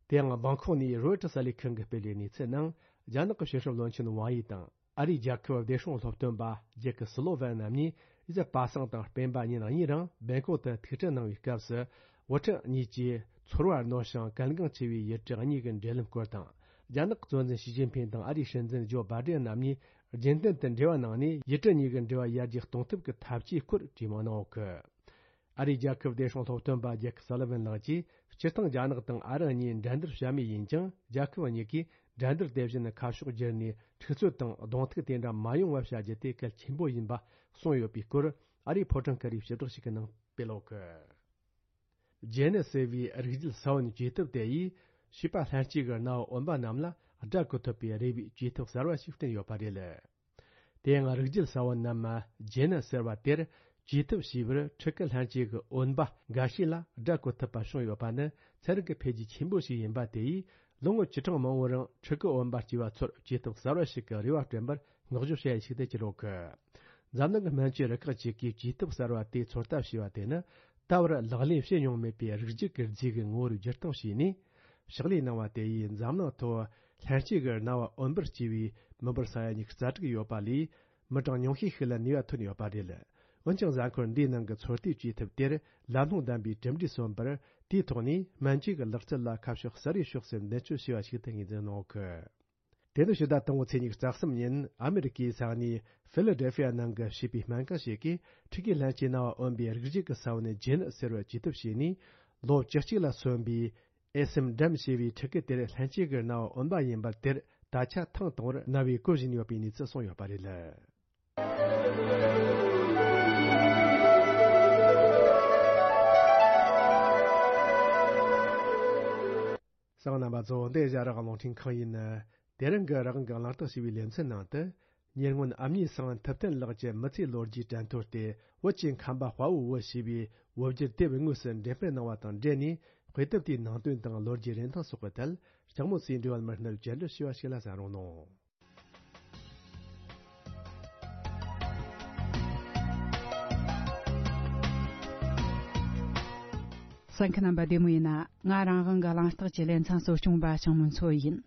དེ་ཡང་སྦང་ཁོག་ནས་རོའི་ཊར་གསར་ལས་ཁང་གིས་སྤེལ་བའི་གནས་ཚུལ་ནང་། རྒྱ་ནག་གི་ཕྱི་སྲིད་བློན་ཆེན་ཝང་ཡི་དང་ཨ་རིའི་རྒྱལ་ཁབ་བདེ་སྲུང་སློབ་སྟོན་པ་ཇེ་ཀི་སི་ལོ་ཝན་རྣམ་གཉིས་རེས་གཟའ་པ་སངས་དང་སྤེན་པ་ཉིན་གཉིས་རིང་སྦེང་ཀོག་ཏུ་ཐུག་འཕྲད་གནང་བའི་སྐབས་སུ། དབུ་ཁྲིད་གཉིས་ཀྱིས་ཚོར་བ་རྣོ་ཞིང་གལ་འགངས་ཆེ་བའི་ཡུལ་གྲུ་གཉིས་ཀྱི་འབྲེལ་ལམ་སྐོར་དང་། རྒྱ་ནག་གི་གཙོ་འཛིན་ཞི་ཅིན་ཕིང་དང་ཨ་རིའི་སྲིད་འཛིན་ཇོ་བྷ་ཌེན་རྣམ་གཉིས་རྒྱུན་ལྡན་དུ་འབྲེལ་བ་གནང་ནས་ཡུལ་གྲུ་གཉིས་ཀྱི་འབྲེལ་བ་ཡར་རྒྱས་གཏོང་ཐབས་ཀྱི་ཐབས་ཇུས་སྐོར་གྲོས་མོལ་གནང་ཡོད་གི། ཨ་རིའི་རྒྱལ་ཁབ་བདེ་སྲུང་སློབ་སྟོན་པ་ཇེ་ཀི་སཱ་ལི་ཝན་ལགས་ཀྱིས། སྤྱིར་བཏང་རྒྱ་ནག་དང་ཨ་རི་གཉིས་འགྲན་བསྡུར་བྱ་མུས་ཡིན་ཀྱང་། རྒྱལ་ཁབ་གཉིས་ཀས་འགྲན་བསྡུར་དེ་བཞིན་ཁ་ཕྱོགས་བསྒྱུར་ནས་འཁྲུག་རྩོད་དང་གདོང་ཐུག་དེ་འདྲ་མ་ཡོང་བ་བྱ་རྒྱུ་དེ་གལ་ཆེན་པོ་ཡིན་པ་གསུངས་ཡོད་པའི་སྐོར། ཨ་རིའི་ཕོ་བྲང་ཁ་རིའི་ཞིབ་བསྒྲགས་ཤིག་གི་ནང་སྤེལ་ཡོད་གི། ཇེ་ནི་ཟེར་བའི་རིགས་རྒྱུད་ས་བོན་བཅོས་ཐབས་དེ་ཡིས་བྱིས་པ་ལྷན་སྐྱེས་ཀྱི་རྣ་བ་འོན་པ་རྣམས་ལ་སྒྲ་གོ་ཐུབ་པའི་རེ་བའི་བཅོས་ཐབས་གསར་བ་ཞིག་བསྐྲུན་ཡོད་པ་རེད། དེ་ཡང་རིགས་རྒྱུད་ས་བོན་ནམ་ཇེ་ནི་ཟེར་བ་དེར་ བཅོས་ཐབས་བྱས་པར་ཕྲུ་གུ་ལྷན་སྐྱེས་ཀྱི་འོན་པ་འགའ་ཤས་ལ་དགྲ་བཀོལ་ཐུབ་པ་བྱུང་ཡོད་པ་ནི་ཚན་རིག་གི་འཕེལ་རྒྱས་ཆེན་པོ་ཞིག་ཡིན་པ་དེ་ཡིས། ལོ་ངོ་བཅུ་གྲངས་མང་པོའི་རིང་ཕྲུ་གུ་འོན་པ་སྐྱེས་པ་ཚོར་བཅོས་ཐབས་གསར་བ་ཞིག་གི་རེ་བ་བསྐྲུན་པར་བསྔགས་བརྗོད་བྱ་ཡུལ་ཞིག་ཏུ་གྱུར་ཡོད་གི། འཛམ་གླིང་གི་སྨན་བཅོས་རུ་ཁག་ཅིག་གིས་བཅོས་ཐབས་གསར་བ་དེའི་ཚོད་ལྟ་བྱས་པ་དེ་ནི། ད་བར་ལག་ལེན་བྱེད་མྱོང་མེད་པའི་རིགས་རྒྱུད་ཀྱི་རྫས་ཀྱི་ངོ་བོར་བསྒྱུར་བཏང་བྱས་ནས། ཕྱག་ལས་གནང་བ་དེ་ཡིས་འཛམ་གླིང་ཐོག་ལྷན་སྐྱེས་ཀྱི་རྣ་བ་འོན་པར་སྐྱེས་པའི་མི་འབོར་ས་ཡ་ཉི་ཤུ་རྩ་དྲུག་ཡོད་པ་ལས། མི་གྲངས་ཉུང་ཤས་ཤིག་ལ་ནུས་པ་ཐོན་ཡོད་པ་རེད། འོན་ཀྱང་། གཟའ་འཁོར་འདིའི་ནང་གི་ཚོད་ལྟའི་བཅོས་ཐབས་དེར་ལམ་ལྷོང་ལྡན་པའི་གྲུབ་འབྲས་སོན་པར། དེའི་ཐོག་ནས་སྨན་བཅོས་ཀྱི་ལག་རྩལ་ལ་ཁ་ཕྱོགས་གསར་བའི་ཕྱོགས་སུ་མདུན་སྐྱོད་བྱས་པ་ཞིག་ཏུ་ངོས་འཛིན་གནང་གི། དེ་ནི་ཕྱི་ཟླ་དང་པོའི་ཚེས་ཉི་ཤུ་རྩ་གསུམ་ཉིན་ཨ་མེ་རི་ཀའི་ས་གནས་ཕི་ལ་ཌེལ་ཕི་ཡ་ནང་གི་བྱིས་པའི་སྨན་ཁང་ཞིག་གིས་ཕྲུ་གུའི་ལྷན་སྐྱེས་རྣ་བ་འོན་པའི་རིགས་རྒྱུད་ཀྱི་ས་བོན་ནས་ཇེ་ནི་ཟེར་བར་བཅོས་ཐབས་བྱས་ནས། ལོ་བཅུ་གཅིག་ལ་སོན་པའི་ཨེ་སེམ་ཌམ་ཞེས་པའི་ཕྲུ་གུ་དེར་ལྷན་སྐྱེས་ཀྱི་རྣ་བ་འོན་པ་ཡིན་པར། དེར་ད་ཆ་ཐེངས་དང་པོར་རྣ་བའི་གོ་བཞིན་ཡོད་པའི་གནས་ཚུལ་གསུངས་ཡོད་པ་རེད། གསན་མཁན་རྣམ་པ་ཚོ། འདི་ཨེ་ཤ་ཡ་རང་དབང་རླུང་འཕྲིན་ཁང་ཡིན། དེ་རིང་གི་རང་དབང་གི་གླེང་སྟེགས་ཞེས་པའི་ལེ་ཚན་ནང་དུ། ཉེ་སྔོན་ཨ་མྱེས་ཚེ་དབང་ཐུབ་བསྟན་ལགས་ཀྱི་མི་ཚེའི་ལོ་རྒྱུས་དྲན་ཐོ་སྟེ། བོད་ཀྱི་ཁམས་པ་དཔའ་བོའི་བུ་ཞེས་པའི་བོད་བསྒྱུར་དེབ་དངོས་སུ་འགྲེམས་སྤེལ་གནང་བ་དང་འབྲེལ་ནས། དཔེ་དེབ་དེའི་ནང་དོན་དང་ལོ་རྒྱུས་རིན་ཐང་སོགས་ཀྱི་ཐད། ལྕགས་མོ་སྲས་འབྲེལ་བ་མི་སྣར་བཅར་འདྲི་ཞུས་པ་ཞིག་ལ་གསན་རོགས་གནང་། གསན་མཁན་རྣམ་པ་བདེ་མོ་ཡིན་ན། ང་རང་དབང་གི་གླེང་སྟེགས་ཀྱི་ལེ་ཚན་གཙོ་སྐྱོང་པ་ཞང་མུན་མཚོ་ཡིན།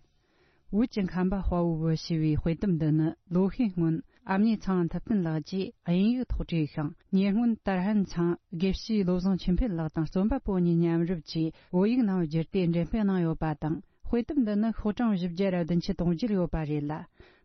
བོད་ཀྱི་ཁམས་པ་དཔའ་བོའི་བུ་ཞེས་པའི་དཔེ་དེབ་འདི་ནི། ལོ་ཤས་སྔོན་ཨ་མྱེས་ཚེ་དབང་ཐུབ་བསྟན་ལགས་ཀྱིས་དབྱིན་ཡིག་ཐོག་བྲིས་ཤིང་། ཉེ་སྔོན་ཏར་ཧན་ཚང་དགེ་བཤེས་བློ་བཟང་ཆོས་འཕེལ་ལགས་དང་རྩོམ་པ་པོ་གཉིས་མཉམ་རུབ་ཀྱིས་བོད་ཡིག་ནང་བསྒྱུར་ཏེ་འགྲེམས་སྤེལ་གནང་ཡོད་པ་དང་། དཔེ་དེབ་འདི་ནི་ཤོག་གྲངས་བཞི་བརྒྱ་དང་བདུན་ཅུ་དོན་བརྒྱད་ཡོད་པ་རེད་ལ།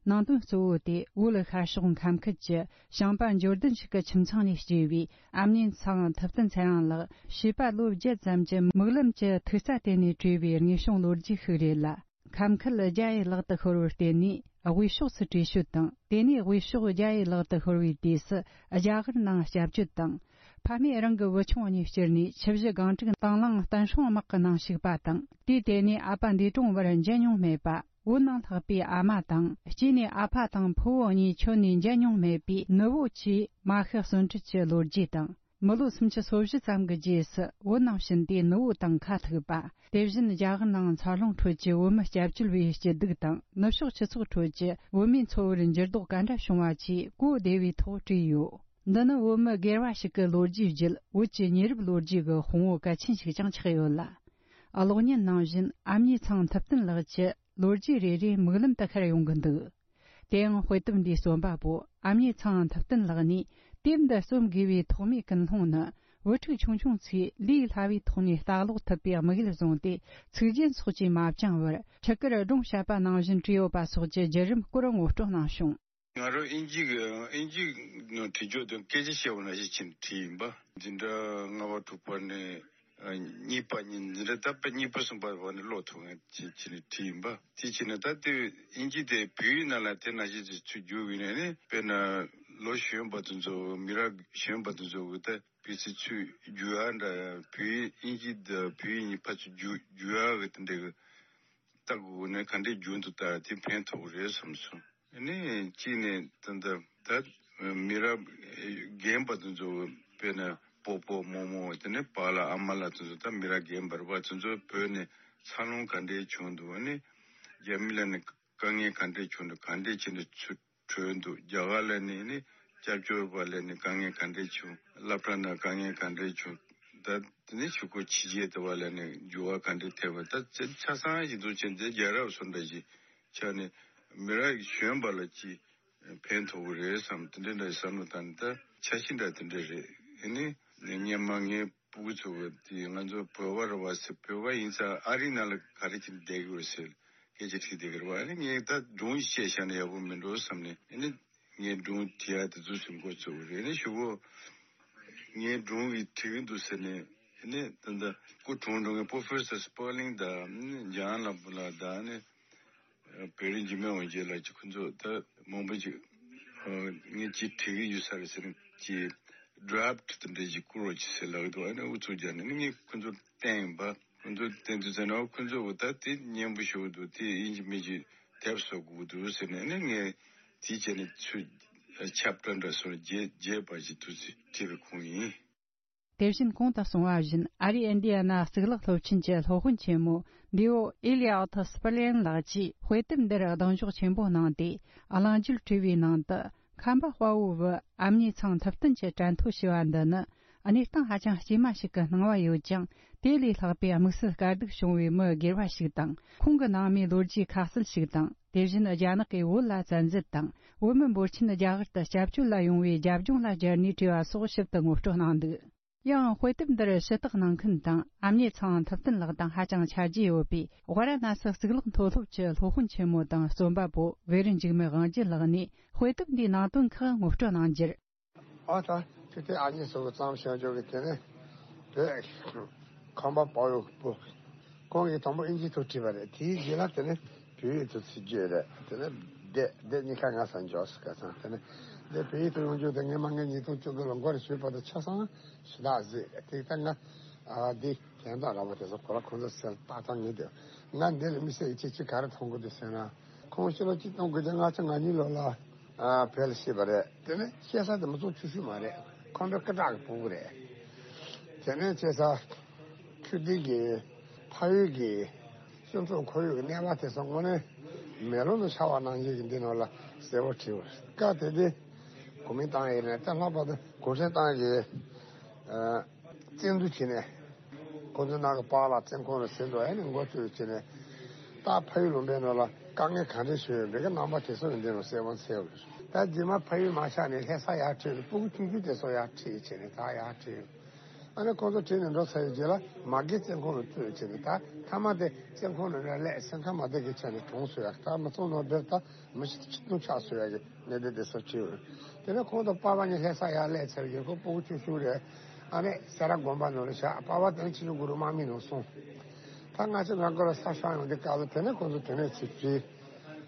ནང་དོན་གཙོ་བོ་དེ་བོད་ཤར་ཕྱོགས་ཁམས་ཁུལ་གྱི་ཞིང་པ་འབྱོར་ལྡན་ཞིག་གི་ཁྱིམ་ཚང་ནས་སྐྱེས་པའི་ཨ་མྱེས་ཚེ་དབང་ཐུབ་བསྟན་ཚེ་རིང་ལགས། བྱིས་པ་ལོ་བརྒྱད་ཙམ་གྱི་མིག་ལམ་གྱི་ཐིག་རྩ་སྟེང་ནས་བྲིས་པའི་དངོས་བྱུང་ལོ་རྒྱུས་ཤིག་རེད་ལ། ཁམས་ཁུལ་རྒྱ་ཡི་ལག་ཏུ་ཤོར་བར་བརྟེན་ནས་དབུས་ཕྱོགས་སུ་བྲོས་བྱོལ་དང་། དེ་ནས་དབུས་ཕྱོགས་རྒྱ་ཡི་ལག་ཏུ་ཤོར་བའི་དུས་སུ་རྒྱ་གར་ནང་སྐྱབས་བཅོལ་དང་། ཕ་མས་རང་གི་བུ་ཆུང་གཉིས་བསྐྱུར་ནས་ཆུ་བཞི་སྒང་དྲུག་དང་བླངས་བསྟན་སྲུང་དམག་གི་ནང་ཞུགས་པ་དང་། དུས་དེ་ནས་ཨ་ཕ་འདས་གྲོངས་བར་མཇལ་མྱོང་མེད་པ། བོད་ནང་ལྷག་པའི་ཨ་མ་དང་། གཅིག་ནས་ཨ་ཕ་དང་ཕུ་བོ་གཉིས་ཁྱོན་ནས་མཇལ་མྱོང་མེད་པའི་ནུ་བོ་བཅས་མ་ཤི་གསོན་བྲལ་གྱི་ལོ་རྒྱུས་དང་། མི་ལོ་སུམ་ཅུ་སོ་བཞི་ཙམ་གྱི་རྗེས་སུ་བོད་ནང་ཕྱིན་ཏེ་ནུ་བོ་དང་ཁ་ཐུག་པ། དེ་བཞིན་རྒྱ་གར་ནང་འཚར་ལོངས་ཁྲོད་ཀྱི་བོད་མི་སྐྱབས་བཅོལ་བའི་སྐྱིད་སྡུག་དང་། ནུབ་ཕྱོགས་སྤྱི་ཚོགས་ཁྲོད་ཀྱི་བོད་མིའི་འཚོ་བར་འགྱུར་ལྡོག་ག་འདྲ་བྱུང་བ་བཅས་གོ་བདེ་བའི་ཐོག་བྲིས་ཡོད། འདི་ནི་བོད་མི་སྒེར་བ་ཞིག་གི་ལོ་རྒྱུས་བརྒྱུད། བོད་ཀྱི་ཉེ་རབས་ལོ་རྒྱུས་ཀྱི་དཔང་བོ་གལ་ཆེན་ཞིག་ཀྱང་ཆགས་ཡོད་ལ། གློག་བརྙན་ནང་བཞིན་ཨ་མྱེས་ཚེ་དབང་ཐུབ་བསྟན་ལགས་ཀྱི་ལོ་རྒྱུས་རེ་རེ་མིག་ལམ་དུ་ཤར་ཡོང་གི་འདུག། དེའང་དཔེ་དེབ་འདིའི་རྩོམ་པ་པོ་ཨ་མྱེས་ཚེ་དབང་ཐུབ་བསྟན་ལགས་ནས། དེབ་འདི་རྩོམ་དགོས་པའི་ཐོག་མའི་ཀུན་སློང་ནི། བུ་ཕྲུག་ཆུང་ཆུང་ཚོས་ལས་སླ་བའི་ཐོག་ནས་ལྟ་ཀློག་ཐུབ་པའི་དམིགས་ཡུལ་བཟུང་སྟེ། ཚིག་རྒྱན་སོགས་ཀྱིས་མ་བཅིངས་པར། ཕྲུ་གུར་སྒྲུང་བཤད་པ་ནང་བཞིན་བྲིས་ཡོད་པ་སོགས་ཀྱི་བརྒྱུད་རིམ་སྐོར་ངོ་སྤྲོད་གནང་བྱུང་། ང་རང་དབྱིན་ཇི་གི་དབྱིན་ཇི་ནང་བྲིས་རྒྱུ་དང་སྐད་ཆ་བཤད་པ་ནང་བཞིན་བྱས་ནས་བྲིས་ཡིན་པ། འཛིན་གྲྭ་ལྔ་པ་དྲུག་པ་ནས་གཉིས་པ་གཉིས། འཛིན་གྲྭ་ད་དཔེ་གཉིས་པ་གསུམ་པ་བར་ནས་ཀློག་ཐུབ་མཁན་བྱས་བྱས་ནས་བྲིས་ཡིན་པ། དེ་བྱས་ནས་ད་ལྟའི་དབྱིན་ཇི་དེ་བོད་ཡིག་ནང་ལ་དེ་ནང་བཞིན་ཚུར་བསྒྱུར་བ་ཡིན་ན་ནི། དཔེར་ན་ལོ་གཞོན་པ་དེ་ཚོ། མི་རབས་གཞོན་པ་དེ་ཚོ་གི་ད་བོད་ཚིག་ཚུར་བསྒྱུར་ཡ་འདྲ། བོད་ཡིག་དབྱིན་ཇི་དང་བོད་ཡིག་གཉིས་ཕར་ཚུར་བསྒྱུར་བསྒྱུར་ཡ་གི་དེ་འདྲ་གི་ལྟ་དགོས་ནས། ག་འདྲས་བསྒྱུར་འདུག་ལྟ་དེ་ཕན་ཐོགས་རེད་བསམ་སོང་། ཨ་ནི་གཅིག་ནས་ད་ལྟ་ད་མི་རབས་རྒན་པ་དེ་ཚོ། དཔེར་ན་སྤོ་སྤོ་རྨོ་རྨོ། དེ་ནས་པཱ་ལགས་ཨ་མ་ལགས་དེ་ཚོ། ད་མི་རབས་རྒན་པ་རེད་པ། དེ་ཚོ་བོད་ནས་འཚར་ལོངས་ག་འདྲས་བྱུང་འདུག། ཨ་ནི་རྒྱ་མི་ལ་ནི་དཀའ་ངལ་ག་འདྲས་བྱུང་འདུག། ག་འདྲས་བྱས་ནས་ཚུར་བྲོས་འདུག། རྒྱ་གར་ལ་ནི་ནི་སྐྱབས་བཅོལ་བ་ལ་ནི་དཀའ་ངལ་ག་འདྲས་བྱུང་། སློབ་གྲྭ་ནང་དཀའ་ངལ་ག་འདྲས་བྱུང་། ད་དེ་ནས་གཞུག་གུ་ཕྱི་རྒྱལ་དུ་བ་ལ་ནི་འགྱུར་བ་ག་འདྲས་ཐེབས་པ། ད་ཆ་ཆ་ཚང་ཞིག་འདུག་ཅེས། འདི་རྒྱལ་རབས་སུ་འདྲ་ཞིག་ཆགས་ནས། མི་རབས་གཞོན་པ་ལ་ཅིག་ཕན་ཐོགས་ཀྱི་རེད་བསམ། དེ་འདྲ་འདྲ་བསམ་བློ་བཏང་ནས། ད་འཆར་གཞི་འདྲ་དེ་འདྲ་རེད། ཨ་ནི་སྔོན་མ་ངའི་སྤུ་གུ་ཚོ་གི་དེ་ང་ཚོ་བོད་པ་རེད་པ་ཟེར། བོད་པ་ཡིན་ཙང་ཨ་རིའི་ནང་ལ་ག་རེ་བྱས་ནས་བསྡད་ཀྱི་ཡོད་ཟེར། སྐད་ཆ་དྲིས་བསྡད་ཀྱི་རེད་པ། ཨ་ནི་ངས་ད་སྒྲུང་བཤད་བཞག་ན་ཡག་པོ་མིན་འགྲོ་བསམ་ནས། ཨ་ནི་ངས་སྒྲུང་བྲིས་ཡ་དེ་ཚོ་ཟིན་འགོ་བཙུགས་པ་རེད། ཨ་ནི་གཞུག་གུ་ངས་སྒྲུང་གི་བྲིས་ཀྱི་འདུག་ཟེར་ནས། ཨ་ནི་ད་ལྟ་སྐུ་གྲོངས་འགྲོ་མཁན་པོ་ཕོ་སར་སི་པར་ལིང་དང་། ཨ་ནི་ཇོན་ལམ་པོ་ལགས་དང་། ཨ་ནི་བེ་རི་ཇི་མེ་འོན་ཇེ་ལགས་ཀྱིས། ཁོ་ཚོ་ད་མང་པོ་ཅིག་ཨ་ངས་ཅིག་བྲིས་ཀྱི་ཡོད་ས་རེད་ཟེར་ནས། ཅིག་ཌ་རབ་ཊི་དེ་འདྲ་ཞིག་བསྐུར་རོགས་གྱིས་ཟེར་ལབ་ཀྱི་འདུག། ཨ་ནི་ཨུ་ཚུགས་རྒྱག་ནས། ཨ་ནི་ངས་ཁོ་ཚོར་བསྟན་ཡིན་པ། ཁོ་ཚོར་བསྟན་དུས་ཙམ་ན། ཁོ་ཚོ་གིས་ད་དེ་སྙན་པོ་ཞེ་པོ་འདུག། དེ་ཡིན་གཅིག་མིན་གཅིག་དེབ་བཟོ་དགོས་འདུག་ཟེར་ནས། ཨ་ནི་ངས་དེ་བྱས་ནས་ཚུར་ ཆབ་བྲག་འདྲ་སོགས་རྒྱས་རྒྱས་པ་ཞིག་ཐུགས་སུ་བྲིས་པའི་ཁུངས་ཡིན། དེ་བཞིན་གོང་དུ་གསུངས་པ་བཞིན། ཨ་རིའི་ཨིན་ཌི་ཡ་ན་གཙུག་ལག་སློབ་ཆེན་གྱི་སློབ་དཔོན་ཆེན་མོ་འདི་བོ་ཨེ་ལི་ཨོ་ཐི་སི་པི་ལེན་ལགས་ཀྱིས་དཔེ་དེབ་འདིར་གདེང་འཇོག་ཆེན་པོ་གནང་སྟེ། གླེང་བརྗོད་བྲིས་པའི་ནང་དུ། ཁམས་པ་དཔའ་བོའི་བུ་ཨ་མྱེས་ཚང་ཐུབ་བསྟན་གྱི་དྲན་ཐོ་ཞེས་པ་འདི་ནི། གནས་སྟངས་ཧ་ཅང་སྐྱེས་མ་ཞིག་གི་སྣང་བ་ཡོད་ཀྱང་། དེ་ལས་ལྷག་པའི་དམིགས་བསལ་དཀའ་སྡུག་བྱུང་བའི་མི་སྒེར་བ་ཞིག་དང་། ཁོང་གི་ནང་མིའི་ལོ་རྒྱུས་ཁ་གསལ་ཞིག་དང་། དེ་བཞིན་རྒྱ་ནག་གིས་བོད་ལ་བཙན་འཛུལ་དང་། བོད་མི་འབོར་ཆེན་རྒྱ་གར་དུ་སྐྱབས་བཅོལ་ལ་ཡོང་བའི་རྒྱབ་ལྗོངས་ལ་སྦྱར་ནས་བྲིས་པ་སོགས་ཞིབ་ཏུ་ངོ་སྤྲོད་གནང་འདུག། ཡང་དཔེ་དེབ་འདིར་ཞུ་དག་གནང་མཁན་དང་། ཨ་མྱེས་ཚང་ཐུབ་བསྟན་ལགས་དང་ཧ་ཅང་ཆ་རྒྱུས་ཡོད་པའི་ཝཱ་ར་ཎ་སི་གཙུག་ལག་མཐོ་སློབ་ཀྱི་སློབ་དཔོན་ཆེན་མོ་དང་རྩོམ་པ་པོ་བེ་རི་འཇིགས་མེད་དབང་རྒྱལ་ལགས་ནས་དཔེ་དེབ་འདིའི་ནང་དོན་ཁག་ངོ་སྤྲོད་གནང་རྒྱུར། ཨ་ད་ཆུ་ཐིགས་ཨ་མྱེས་སོགས་ཀྱི་བརྩམས་བྱུང་ཆོག་གི། དེ་ནས་བོད་ཁམས་པ་དཔའ་བོའི་བུ། ཁོང་གིས་དང་པོ་ཨིན་ཇིའི་ཐོག་བྲིས་པ་རེད། དེའི་རྗེས་ལ་དེ་ནས་བོད་ཡིག་ཏུ་ཚུར་བསྒྱུར་རེད། དེ་ནས་སྡེ་སྡེ་གཉིས་ཀ་ང་ས་འཇོག་སུ་ག་ཚང་། དེ་ནས་སྡེ་བོད་ཡིག་ཏུ་ཡོང་རྒྱུ་དེ་སྔོན་མ་ངས་ཉིས་སྟོང་བཅུ་དགུ་ལོ་འགོ་རེ་ཞུས་པ་དང་ཆ་ཚང་ཞུ་དག་ཟིག་རེད། དེ་ལྟར་ང་ཨ་འདི་དོན་དག་ར་བ་དེ་ཚོ་གོ་ལ་ཁོང་ཚོ་སེལ་ཏག་ཏག་ངེས་དེ། ང་འདི་ལ་མི་སེར་གྱི་ཅི་ཅི་ག་རེ་མཐོང་གི་འདུག་ཟེར་ན། ཁོང་ཕྱི་ལོ་གཅིག་སྟོང་དགུ་བརྒྱ་ལྔ་བཅུ་ང་གཉིས་ལོ་ལ་ཨ་བོད་ལ་སྐྱེས་པ་རེད། དེ་ནས་སྐྱེས་ས་དེ་མི་ཚོགས་ཆུ་ཤུར་མ་རེད། ཁམས་པའི་སྐད་གྲགས་ཀྱི་ཕྲུ་གུ་རེད། དེ་ནས་སྐྱེས་ས་ཆུ་ཐིགས་ཀྱི་ཕ་ཡུལ་གྱི་སྤྱི་ཚོགས་ཁོར་ཡུག་གི་གནས་བབ་དེ་ཚོ་དངོས་གནས་མེ་ལོང་དུ་འཆར་བ་ནང་བཞིན་གྱི་འདི་ནང་ལ་གསལ་པོ་བྲིས་པ་རེད། སྐབས་དེ་དུས་གོ་མིན་ཏང་ཡིན་ནས་ད་ལྷག་པར་དུ་གུང་ཁྲན་ཏང་གི་ཨ། བཙན་འཛུལ་བྱས་ནས། ཁོང་ཚོའི་ནང་གི་པཱ་ལགས་བཙོན་ཁང་ལ་ཟིན་འགྲོ་ཡ་ནས་འགོ་བཙུགས་བྱས་ནས། ད་ཕ་ཡུལ་ལུང་པའི་ནང་ལ་དཀའ་ངལ་ག་འདྲ་བྱུང་ཡོད་པའི་གི་རྣམ་པ་དེ་ཚོ་ཡང་འདི་ནང་གསལ་པོ་འཚལ་བ་རེད། ད་རྗེས་མ་ཕ་ཡུལ་མ་ཆགས་ནས་ལྷ་ས་ཡར་ཁྲིད་ནས་སྤུ་གུ་ཆུང་ཆུང་དེ་ཚོ་ཡར་ཁྲིད་བྱས་ནས་ད་ཡར་ཁྲིད། ཨ་ནི་ཁོང་ཚོ་ཁྲིད་ནས་འགྲོ་ཚར་བའི་རྗེས་ལ་མ་གི་བཙོན་ཁང་ལ་བཙུགས་བྱས་ནས་ད་མཐའ་མ་དེ་བཙོན་ཁང་ནང་ནས་སླེབས་སེམས་ཁམས་མ་བདེ་གི་ཆ་ནས་གྲོངས་སོང་ཡ། ད་མི་ཚང་ནང་བསྡད་ད། མི་ཤི་ཆིག་སྟོང་ཆགས་སོང་ཡ་གི་གནད་དོན་དེ་ཚོ་བྱུང་། དེ་ནས་ཁོང་དང་པཱ་ལགས་གཉིས་ལྷ་ས་ཡར་སླེབས་ཚར་གི་ཁོ་སྤུ་གུ་ཆུང་ཆུང་རེད། ཨ་ནི་སེ་ར་དགོན་པ་ནང་ལ་བཞག་པཱ་ལགས་དེ་ནས་ཆོས་འབྱུང་གུ་རུ་དམག་མི་ནང་སོང་། ད་ང་ཚོ་ང་དགོན་ལ་ས་ཤོར་ཡོང་དུས་སྐབས་ལ་དེ་ནས་ཁོང་ཚོ་དེ་ནས་ཚུར་བྲིས།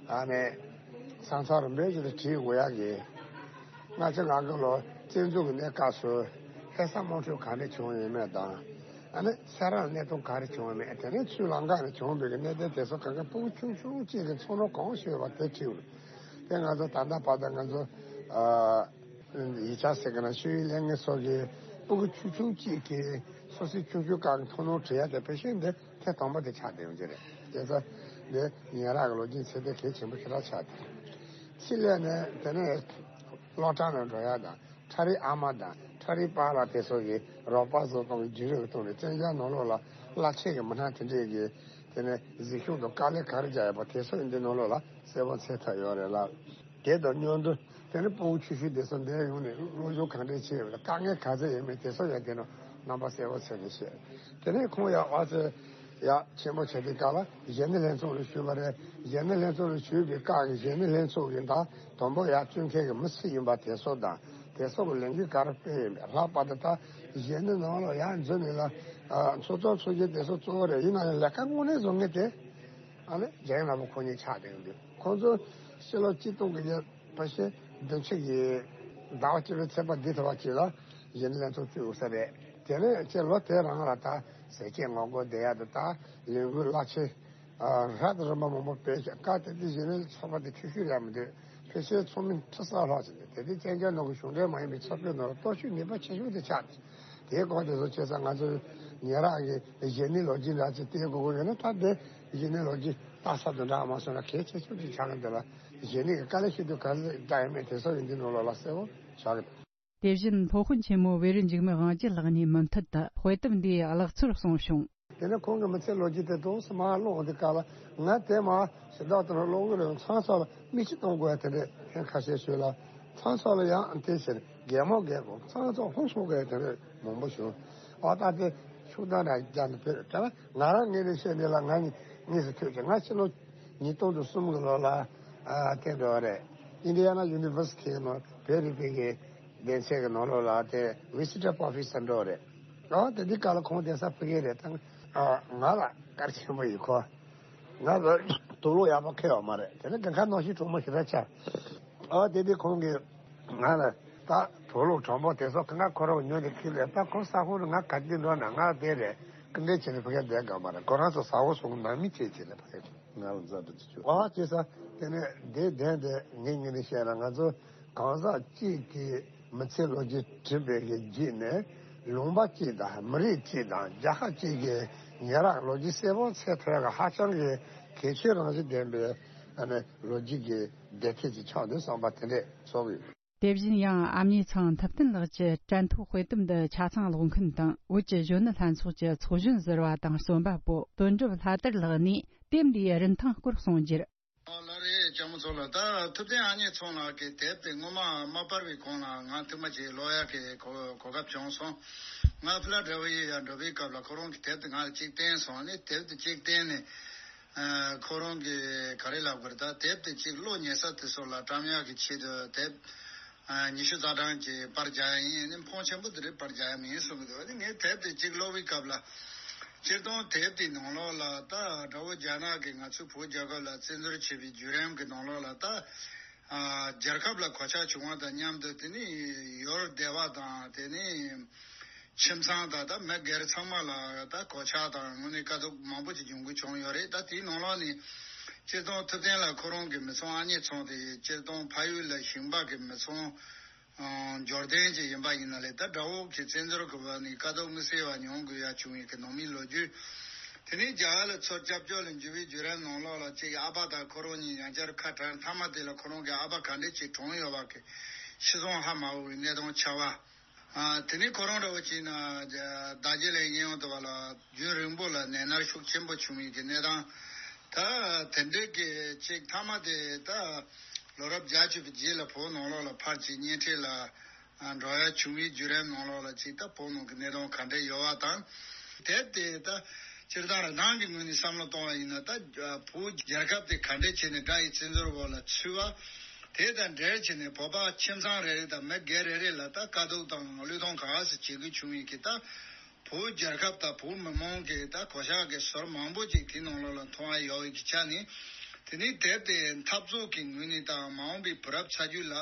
ཨ་ནི་ས་མཚམས་རིམ་པས་ཅིག་ལ་བྲིས་དགོས་ཡ་གི། ང་ཚོ་ང་དགོན་ལ་བཙན་འཛུལ་གི་གནས་སྐབས་སུ་ལྷ་ས་དམག་འཁྲུག་ག་འདྲ་བྱུང་ཡོད་མེད་དང་། ཨ་ནི་སེ་ར་ལ་གནད་དོན་ག་རེ་བྱུང་བ་མེད། དེ་ནས་ཆུ་ལམ་ཁ་ནས་བྱུང་བའི་གནད་དོན་དེ་ཚོ་གང་ག་སྤུ་གུ་ཆུང་ཆུང་གཅིག་གིས་ཚོར་སྣང་གང་ཤེས་པ་དེ་བྲིས་ཡོད། དེ་ང་ཚོ་ད་ལྟ་བར་དུ་ང་ཚོ་ཨ་ཡིག་ཆ་ཟེར་གི་ན་ཤེས་ཡོན་ལས་འགན་ཚོ་གིས་སྤུ་གུ་ཆུང་ཆུང་གཅིག་གིས་སོ་སོའི་ཆུང་ཆུང་སྒང་གི་ཐུགས་སྣང་བྲིས་ཡ་དེ་ཕལ་ཆེར་འདི་ཐེངས་དང་པོ་དེ་ཆགས་བསྡད་ཡོང་གི་རེད། བྱས་ཙང་འདི་ཉེ་རབས་ཀྱི་ལོ་རྒྱུས་ཚད་ལྡན་གལ་ཆེན་པོ་ཞེ་དྲག་ཆགས་ཏེ། ཕྱི་ལས་ནས་དེ་ནས་སློབ་གྲྭ་ནང་འགྲོ་ཡ་དང་། ཁྲ་རིག་ཨ་མ་དང་ཁྲ་རིག་པཱ་ལགས་དེ་ཚོ་གིས་རོགས་པ་བཟོ་སྟངས་ཀྱི་བརྒྱུད་རིམ་གྱི་ཐོག་ནས་བཙན་རྒྱལ་ནང་ལོགས་ལ་བླ་ཆེན་གྱི་མི་སྣ་དེ་འདྲས་ཀྱིས་དེ་ནས་གཟིགས་ཞིབ་དང་དཀའ་ལས་ག་རེ་རྒྱག་ཡོད་པ་དེ་ཚོ་ཡང་འདི་ནང་ལོགས་ལ་གསལ་པོ་འཚོལ་ཐུབ་ཡོད་རེད་ལ། དེ་དང་མཉམ་དུ་དེ་ནས་སྤུ་གུ་ཆུང་ཆུང་དེ་ཚོ་འདིར་ཡོང་ནས་སློབ་སྦྱོང་ག་འདྲས་བྱས་ཡོད་པ་དང་དཀའ་ངལ་ག་ཚོད་ཡོད་མེད་དེ་ཚོ་ཡང་དེ་ནང་རྣམ་པ་གསལ་པོ་འཚོལ་ནས་བཤད། དེ་ནས་ཁོང་ཡང་ཨ་ཙི་ཡག་ཆེན་པོ་བྱས་དུས་སྐབས་ལ་གཞོན་ནུ་ལྷན་ཚོགས་ལ་ཞུས་པ་རེད། གཞོན་ནུ་ལྷན་ཚོགས་ལ་ཞུས་པའི་སྐབས་ཀྱི་གཞོན་ནུ་ལྷན་ཚོགས་ཀྱི་ད་དང་པོ་ཡར་བཙོན་མཁན་གྱི་མི་སུ་ཡིན་པ་དེ་ཚོ་དང་། དེ་ཚོ་གི་ལས་འགུལ་ག་རེ་སྤེལ་ཡིན་པ། ལྷག་པར་དུ་ད་གཞོན་ནུ་ནང་ལ་ཡར་འཛུལ་ནས་ལ་ཨ་ཚོགས་གཙོ་ཚོགས་གཞོན་དེ་ཚོ་གཙོ་བོ་རེད། ཡིན་ན་ཡང་ལས་ཀ་དངོས་གནས་བཟོ་མཁན་དེ་ཨ་ནི་རྒན་ལགས་པོ་ཁོ་གཉིས་ཆགས་བསྡད་ཡོང་དུས། ཁོང་ཚོ་ཕྱི་ལོ་གཅིག་སྟོང་དགུ་བརྒྱ་ཕལ་ཆེར་བདུན་ཅུ་གི་ཟླ་བ་གཅིག་པའི་ཚེས་པ་འདི་ཐོག་གཅིག་ལ་གཞོན་ནུ་ལྷན་ཚོགས་བཙུགས་ཡོད་ས་རེད། དེ་ནས་ཁྱེད་ལོ་དེ་རང་ལ་ད་ཟས་བཅད་ངོ་རྒོལ་བསྡད་ཡ་དང་། ད་ལས་འགུལ་རླབས་ཆེན་ཨ་རབ་དང་རིམ་པ་མང་པོ་སྤེལ་ཀྱང་། སྐབས་དེ་དུས་གཞོན་ནུ་ཚོགས་པ་དེ་ཆུང་ཤོས་རེད་མི་འདུག་ཕལ་ཆེར་ཚོགས་མི་ཁྲི་ས་ལྷག་ཅིག་འདུག་དེ་དུས་བཙན་རྒྱལ་ནང་གི་གཞུང་འབྲེལ་མ་ཡིན་པའི་ཚོགས་པའི་ནང་ལ་སྟོབས་ཤུགས་ནུས་པ་ཆེ་ཤོས་དེ་ཆགས་ཏེ། དེའི་སྐོར་དེ་ཚོ་བྱས་ཙང་ང་ཚོ་ཉེ་རབས་ཀྱི་གཞོན་ནུའི་ལོ་རྒྱུས་འདྲ་ཅིག་བལྟས་དགོས་ཀྱི་ཡོད་ན། ད་དེ་གཞོན་ནུའི་ལོ་རྒྱུས་ལྟ་ས་དང་འདྲ་མ་སོང་ན་གལ་ཆེ་ཤོས་ཅིག་ཆགས་ཀྱི་འདུག་ལ། གཞོན་ནུ་གི་དཀའ་ལས་ཤི་དུས་ག་ཚོད་བཏང་ཡོད་མེད་དེ་ཚོ་ཡིན་དུས་ནང་ལོགས་ལ་གསལ་པོ་ཆགས་ཀྱི་འདུག་དེ་བཞིན་སློབ་དཔོན་ཆེན་མོ་བེ་རི་འཇིགས་མེད་དབང་རྒྱལ་ལགས་ནས་མུ་མཐུད་དུ་དཔེ་དེབ་འདིའི་ཀློག་ཚུལ་གསུངས་བྱུང་། དེ་ནས་ཁོང་གི་མི་ཚེའི་ལོ་རྒྱུས་དེ་ཏོག་ཙམ་མར་ཀློག་དུས་སྐབས་ལ། ང་དེ་མར་ཞེ་དྲག་ཏུ་ཀློག་གི་རེད། ཚང་ཚང་ལ་མིག་ཆུ་གཏོང་དགོས་ཡ་དེ་འདྲས་ཐེངས་ཁ་ཤས་ཤོད་ལ། ཚང་ཚང་ལ་ཡང་དེ་ཕྱིར་གད་མོ་བགད་དགོས། ཚང་ཚང་ཧོན་སོང་དགོས་ཡ་དེ་འདྲས་མང་པོ་བྱུང་། ཨ་ད་དེ་ཤུགས་ལྡན་ར་རྒྱ་ནི་བོད་དྲ་ང་རང་ངོས་ནས་བཤད་ནས་ལ། ང་ངོས་སུ་ཐོས་ཀྱི། ང་ཕྱི་ལོ་ཉིས་སྟོང་དང་གསུམ་གི་ལོ་ལ་ཨ་དེ་འགྲོ་བ་རེད། ཨིན་ཌི་ཡ་ན་ཡུ་ནི་ཝར་སི་ཊི་ནང་བོད་རིག་པའི་གི་སྡེ་ཚན་གྱི་ནང་ལོགས་ལ་དེ་ཝི་སི་ཊར་པོ་ཕེ་སར་འགྲོ་བ་རེད། ཨ་དེ་དུས་སྐབས་ལ་ཁོང་གདན་ས་ཕ་གི་རེད། ད་ང་ལ་གལ་ཆེན་པོ་ཡིན། ཁོ་ང་ལ་དུག་ལོག་ཡག་པོ་ཁེལ་ཡོད་མ་རེད། དེ་ནས་གང་ག་གནོན་ཤུགས་གྲོགས་མོ་ཞེ་དྲག་ཆགས། ཨ་དེ་དུས་ཁོང་གིས་ང་ལ་ད་དུག་ལོག་གྲོགས་པོ་དེ་ཚོ་གང་ག་ཁོ་རང་ཉོས་ཏེ་ཁྱེར་ལས། ད་ཁོ་ས་ཁོངས་ནས་ང་ག་དུས་འགྲོ་ན་ང་དེ་རེད། སྐུ་མགྲོན་བྱས་ནས་ཕ་གིར་བསྡད་དགོས་མ་རེད། ཁོ་རང་ཚོ་ས་འོག་སོང་ནང་མི་བྱས་བྱས་ནས་ཕ་གིར་ང་ལ་མཛའ་འདྲི་བྱེད་ཆོག་ཨ་བྱས་ཙང་དེ་ནས་དེ་བདེན་དེ་ངས་ངས་ནས་བཤད་ན། ང་ཚོ་ གང་ཟག་གཅིག་གིས་མི་ཚེའི་ལོ་རྒྱུས་བྲིས་པའི་གི་བརྒྱུད་ནས། ལུང་པ་གཅིག་དང་མི་རིགས་གཅིག་དང་རྒྱལ་ཁབ་གཅིག་གི་ཉེ་རབས་ལོ་རྒྱུས་གསལ་པོ་ཚད་མཐོའི་གི་ཧ་ཅང་གི་གལ་ཆེའི་རང་བཞིན་ལྡན་པའི་ཨ་ནི་ལོ་རྒྱུས་ཀྱི་བདེ་ཐེབས་ཀྱི་ཆགས་འདུག་བསམ་པ་དེ་འདྲས་ཚོར་གི་ཡོད། དེ་བཞིན་ཡང་ཨ་མྱེས་ཚང་ཐུབ་བསྟན་ལགས་ཀྱི་དྲན་ཐོ་དཔེ་དེབ་འདི་ཆ་ཚང་ཀློག་མཁན་དང་བོད་ཀྱི་གཞོན་ནུ་ལྷན་ཚོགས་ཀྱི་ཚོགས་གཞོན་ཟུར་པ་དང་རྩོམ་པ་པོ་དོན་གྲུབ་ལྷ་དར་ལགས་ནས་དེབ་འདིའི་རིན་ཐང་སྐོར་གསུངས་རྒྱུར། ཨོ་ལགས་རེད། ལྕམ་མོ་མཚོ་ལགས། ད་ཐུབ་བསྟན་ཨ་མྱེས་ཚང་ལགས་ཀྱི་དེབ་དེ་སྔོན་མ་མ་པར་བའི་གོང་ལ་ང་ཐུག་མ་ཅིག་ཀློག་ཡག་གི་གོ་གོ་སྐབས་བྱུང་སོང་། ང་ཕི་ལ་ཌེལ་ཕི་ཡ་འགྲོ་བའི་སྐབས་ལ་ཁོ་རང་གི་དེབ་དེ་ང་ལ་གཅིག་བསྟན་སོང་། ཨ་ནི་དེབ་དེ་གཅིག་བསྟན་ནས། ཨ། ཁོ་རང་གིས་ག་རེ་ལབ་དགོས་རེད། ད་དེབ་དེ་གཅིག་ཀློག་ཉན་ས་དེ་ཚོ་ལ་བཀྲམ་ཡག་གི་ཆེད་དུ་དེབ་ཨ་ཉི་ཤུ་རྩ་གྲངས་ཀྱི་པར་རྒྱག་ཡ་ཡིན། ཨ་ནི་ཕོན་ཆེན་པོ་དེ་རིགས་པར་རྒྱག་ཡ་མིན་གསུང་གི་འདུག་ཨ་ནི་ངས་དེབ་དེ་གཅིག་ཀློག་པའི་སྐབས་ལ། སྤྱིར་བཏང་དེབ་དེའི་ནང་ལོགས་ལ་ད་དགྲ་བོ་རྒྱ་ནག་གིས་ང་ཚོའི་བོད་རྒྱལ་ཁབ་ལ་བཙན་འཛུལ་བྱས་པའི་བརྒྱུད་རིམ་གྱི་ནང་ལོགས་ལ་ད། ཨ། རྒྱལ་ཁབ་ལ་གོད་ཆག་བྱུང་བ་དང་མཉམ་དུ། དེ་ནི་ཡུལ་སྡེ་བ་དང་། དེ་ནི་ཁྱིམ་ཚང་དང་ད་མི་སྒེར་ཚང་མ་ལ་ད་གོད་ཆག་དང་དངོས་གནས་དཀའ་སྡུག་མང་པོ་ཅིག་འབྱུང་དགོས་བྱུང་ཡོད་རེད། ད་དེའི་ནང་ལོགས་ནས་སྤྱིར་བཏང་ཐུབ་བསྟན་ལགས་ཁོ་རང་གི་མི་ཚང་ཨ་མྱེས་ཚང་དེ་སྤྱིར་བཏང་ཕ་ཡུལ་ལ་ཞིང་པ་གི་མི་ཚང་ཨ་འབྱོར་ལྡན་ཅིག་ཡིན་པ་ཡིན་ན་ལས། ད་དགྲ་བོ་གི་བཙན་འཛུལ་གི་འོག་ནས་དཀའ་སྡུག་དམིགས་བསལ་བ་མྱོང་དགོས་ཡ་བྱུང་བའི་གི་ནང་མིའི་ལོ་རྒྱུས། དེ་ནས་རྒྱ་གར་ལ་ཚུར་སྐྱབས་བཅོལ་ལ་འབྱོར་བའི་བརྒྱུད་རིམ་ནང་ལོགས་ལ་ཅིག་ཨ་ཕ་དང་ཁོ་རང་གཉིས་ཡང་བསྐྱར་ཁ་བྲལ། མཐའ་མ་དེ་ལ་ཁོ་རང་གི་ཨ་ཕ་ག་འདྲས་ཅིག་གྲོངས་ཡོད་པ་གི་ཤི་སོང་ཧ་མ་གོ་བའི་གནས་སྟངས་ཆགས་པ། ཨ། དེ་ནས་ཁོ་རང་འདྲ་བོ་ཅིག་ན་རྡོ་རྗེ་གླིང་གཡས་གཡོན་དུ་བ་ལ་རྒྱུན་རིང་པོ་ལ་ནད་མནར་ཤུགས་ཆེན་པོ་བྱུང་བའི་གི་གནས་སྟངས། ད་དེ་འདྲའི་གི་ཅིག་མཐའ་མ་དེ་ད་ལོ་རབས་བརྒྱད་ཅུ་པའི་རྗེས་ལ་བོད་ནང་ལོགས་ལ་ཕར་ཅིག་གཉེན་འཕྲད་ལ་ཨ་འགྲོ་ཡ་བྱུང་བའི་བརྒྱུད་རིམ་ནང་ལོགས་ལ་ཅིག་ད་བོད་ནང་གི་གནས་སྟངས་ག་འདྲ་ཡོད་པ་དང་། དེབ་དེ་ད་སྤྱིར་བཏང་རང་ནང་གི་ངོས་ནས་བསམ་བློ་གཏོང་བ་ཡིན་ན། ད་བོད་རྒྱལ་ཁབ་དེ་ག་འདྲས་བྱས་ནས་དགྲ་ཡི་བཙན་འཛུལ་འོག་ལ་ཚུད་པ། དེ་དང་འབྲེལ་བྱས་ནས་བོད་པ་ཁྱིམ་ཚང་རེ་རེ་དང་མི་སྒེར་རེ་རེ་ལ་ད་དཀའ་སྡུག་དང་བློས་གཏོང་ག་ཟེ་བྱེད་དགོས་བྱུང་བའི་གི་ད་བོད་རྒྱལ་ཁབ་དང་བོད་མི་མང་གི་ད་གོད་ཆག་གི་ཟུར་མང་པོ་ཅིག་དེའི་ནང་ལོགས་ལ་མཐོང་ཡ་ཡོད་པའི་གི་ཆ་ནས། དེ་ནས་དེབ་དེ་འཐབ་རྩོད་ཀྱི་ངོས་ནས་དང་མ་འོངས་པའི་བུ་རབས་ཚ་རྒྱུད་ལ་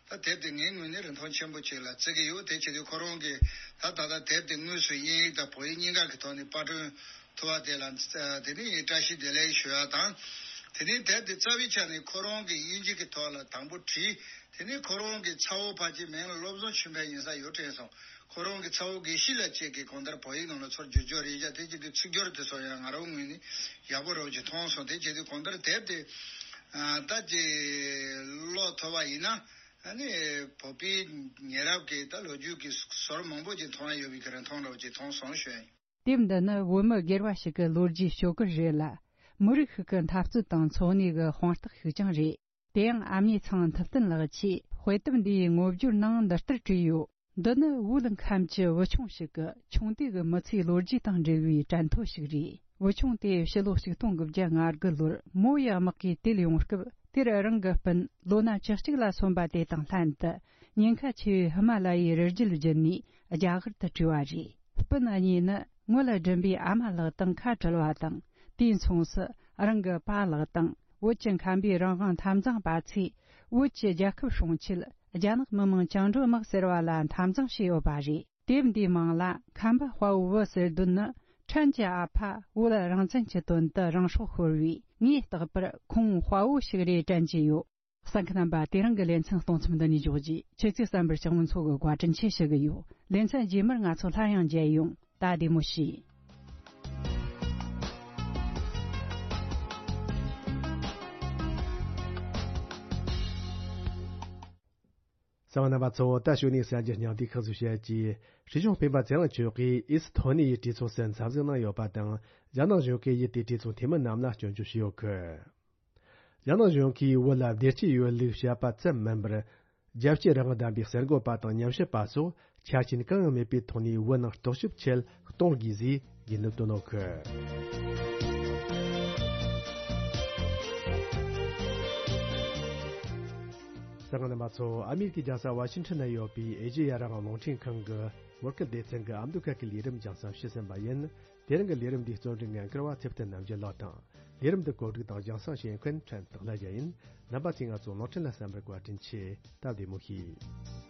ད་དེབ་དེ་ངའི་ངོས་ནས་རིན་ཐང་ཆེན་པོ་ཅིག་ལ་བརྩི་གི་ཡོད། དེ་བྱེད་དུས་ཁོ་རང་གིས་ད་ད་ལྟ་དེབ་དེ་དངོས་སུ་དབྱིན་ཡིག་དང་བོད་ཡིག་གཉིས་ཀ་གི་ཐོག་ནས་པར་སྐྲུན་ཐུབ་པ་དེ་ལ་དེ་ནས་བཀྲ་ཤིས་བདེ་ལེགས་ཞུ་ཡ་དང་། དེ་ནས་དེབ་དེ་རྩ་བའི་ཆ་ནས་ཁོ་རང་གིས་དབྱིན་ཇི་གི་ཐོག་ལ་དང་པོ་བྲིས། དེ་ནས་ཁོ་རང་གི་ཚ་བོ་ཕལ་ཆེར་མིང་ལ་བློ་བཟང་ཆོས་འཕེལ་ཡིན་ས་ཡོད་དྲན་སོང་། ཁོ་རང་གི་ཚ་བོ་དགེ་བཤེས་ལགས་བཅས་ཀྱིས་གང་ལྟར་བོད་ཡིག་ནང་ལ་ཚུར་བསྒྱུར་བཅོས་རེ་བཞག་དེ་བྱེད་དུས་ཚིག་སྦྱོར་དེ་ཚོ་ཡང་ང་རང་ངོས་ནས་ཡག་པོ་རང་ཅིག་མཐོང་སོང་། དེ་བྱེད་དུས་གང་ལྟར་དེབ་དེ་ཨ་ད་ཅིག་ཀློག་ཐུབ་པ་ཡིན་ན། ཨ་ནི་བོད་པའི་ཉེ་རབས་ཀྱི་ད་ལོ་རྒྱུས་ཀྱི་ཟུར་མང་པོ་ཅིག་མཐོང་ཡ་ཡོད་པའི་གི་རིན་ཐང་འདྲ་བོ་ཅིག་མཐོང་སོང་ཞུ་ཡ་ཡིན། དེབ་འདི་ནི་བོད་མི་སྒེར་བ་ཞིག་གི་ལོ་རྒྱུས་ཤོག་གུ་རེད་ལ། མི་རིགས་ཤིག་གི་འཐབ་རྩོད་དང་འཚོ་གནས་ཀྱི་དཔང་རྟགས་ཤིག་ཀྱང་རེད། དེ་ཡང་ཨ་མྱེས་ཚང་ཐུབ་བསྟན་ལགས་ཀྱིས་དཔེ་དེབ་འདིའི་ངོ་སྦྱོར་ནང་འདི་ལྟར་བྲིས་ཡོད། འདི་ནི་བོད་ཁམས་ཀྱི་བུ་ཆུང་ཞིག་གི་ཆུང་དུས་ཀྱི་མི་ཚེའི་ལོ་རྒྱུས་དང་འབྲེལ་བའི་དྲན་ཐོ་ཞིག་རེད། བུ་ཆུང་དེ་ཕྱི་ལོ་ཆིག་སྟོང་དགུ་བརྒྱ་ང་དགུ་ལོར་མོ་ཡི་དམག་གིས་དེད་ཡོང་སྐབས། དེར་རང་གི་སྤུན་ལོ་ན་བཅུ་གཅིག་ལ་སོན་པ་དེ་དང་ལྷན་དུ་ཉེན་ཁ་ཆེ་བའི་ཧི་མ་ལ་ཡའི་རི་རྒྱུད་བརྒྱུད་ནས་རྒྱ་གར་དུ་བྲོས་པ་རེད། སྤུན་གཉིས་ནི་ངོ་ལ་སྒྲིམ་པའི་ཨ་མ་ལགས་དང་ཁ་བྲལ་བ་དང་། དུས་མཚུངས་སུ་རང་གི་པཱ་ལགས་དང་བོད་ཀྱི་ཁམས་པའི་རང་དབང་འཐབ་འཛིང་པ་ཚོས་བོད་ཀྱི་རྒྱལ་ཁབ་སྲུང་ཆེད་རྒྱ་ནག་མི་དམངས་བཅིངས་འགྲོལ་དམག་ཟེར་བ་ལ་འཐབ་འཛིང་བྱས་ཡོད་པ་རེད། དེབ་འདིའི་མིང་ལ་ཁམས་པ་དཔའ་བོ་བུ་ཟེར་དོན་ནི། ཕྲན་གྱི་ཨ་ཕ་བོད་རང་བཙན་གྱི་དོན་དུ་རང་སྲོག་ཤོར་བས་ངས་བརྟག་པར་ཁོང་དཔའ་བོ་ཞིག་རེད་དྲན་གྱི་ཡོད། གསན་མཁན་རྣམ་པ། དེ་རིང་གི་ལེ་ཚན་གཏོང་མཚམས་འདི་ནས་འཇོག་རྗེས། ཁྱེད་ཚོས་གསན་པར་ལྕགས་མོ་མཚོ་གིས་བཀའ་དྲིན་ཆེ་ཞུ་གི་ཡོད། ལེ་ཚན་རྗེས་མར་ང་ཚོ་སླར་ཡང་མཇལ་ཡོང་། ད་བདེ་མོ་བྱོས། གསན་པ་རྣམ་པ་ཚོ། ད་གཞུག་ནས་གསར་འགྱུར་སྙིང་བསྡུས་ཁག་ཅིག་བཤད་རྒྱུ། སྲིད་སྐྱོང་སྤེན་པ་ཚེ་རིང་མཆོག་གིས་ཨེ་སི་ཐོ་ནི་ཡའི་གྲོས་ཚོགས་སུ་འཚམས་གཟིགས་གནང་ཡོད་པ་དང་། རྒྱ་ནག་གཞུང་གིས་ཡུལ་དེའི་གྲོས་ཚོགས་འཐུས་མི་རྣམས་ལ་སྐྱོན་བརྗོད་བྱས་ཡོད་སྐད། རྒྱ་ནག་གཞུང་གིས་བོད་ལ་བདེ་སྐྱིད་ཡོད་ལུགས་བཤད་པ་ཙམ་མིན་པར། རྒྱལ་གཅེས་རང་དབང་ལྡན་པའི་གསར་འགོད་པ་དང་ཉམས་ཞིབ་པ་སོགས་ཆ་རྐྱེན་གང་ཡང་མེད་པའི་ཐོག་ནས་བོད་ནང་རྟོག་ཞིབ་ཆེད་གཏོང་དགོས་ཞེས་དགོས་འདུན་བཏོན་ཡོད་སྐད། གསན་མཁན་རྣམ་པ་ཚོ། ཨ་མེ་རི་ཀའི་རྒྱལ་ས་ཝ་ཤིང་ཊོན་ན་ཡོད་པའི་ཨེ་ཤེ་ཡ་རང་དབང་རླུང་འཕྲིན་ཁང་གི་བོད་སྐད་སྡེ་ཚན་གྱི་ཨ་མདོ་ཁ་སྐད་ལས་རིམ་རྒྱང་སྲིང་ཞུས་ཟིན་པ་ཡིན། དེ་རིང་གི་ལས་རིམ་འདིའི་རྩོམ་སྒྲིག་འགན་འཁུར་བ་ཚེ་བརྟན་རྣམ་རྒྱལ་ལགས་དང་། ལས་རིམ་འདི་གོ་སྒྲིག་དང་རྒྱང་སྲིང་བྱེད་མཁན་ཕྲན་སྟག་ལྷ་རྒྱལ་ཡིན། རྣམ་པ་ཚོས་ང་ཚོ་རླུང་འཕྲིན་ལ་གསན་པར་བཀའ་དྲིན་ཆེ། སྟབས་བདེ་མོ་བྱོས།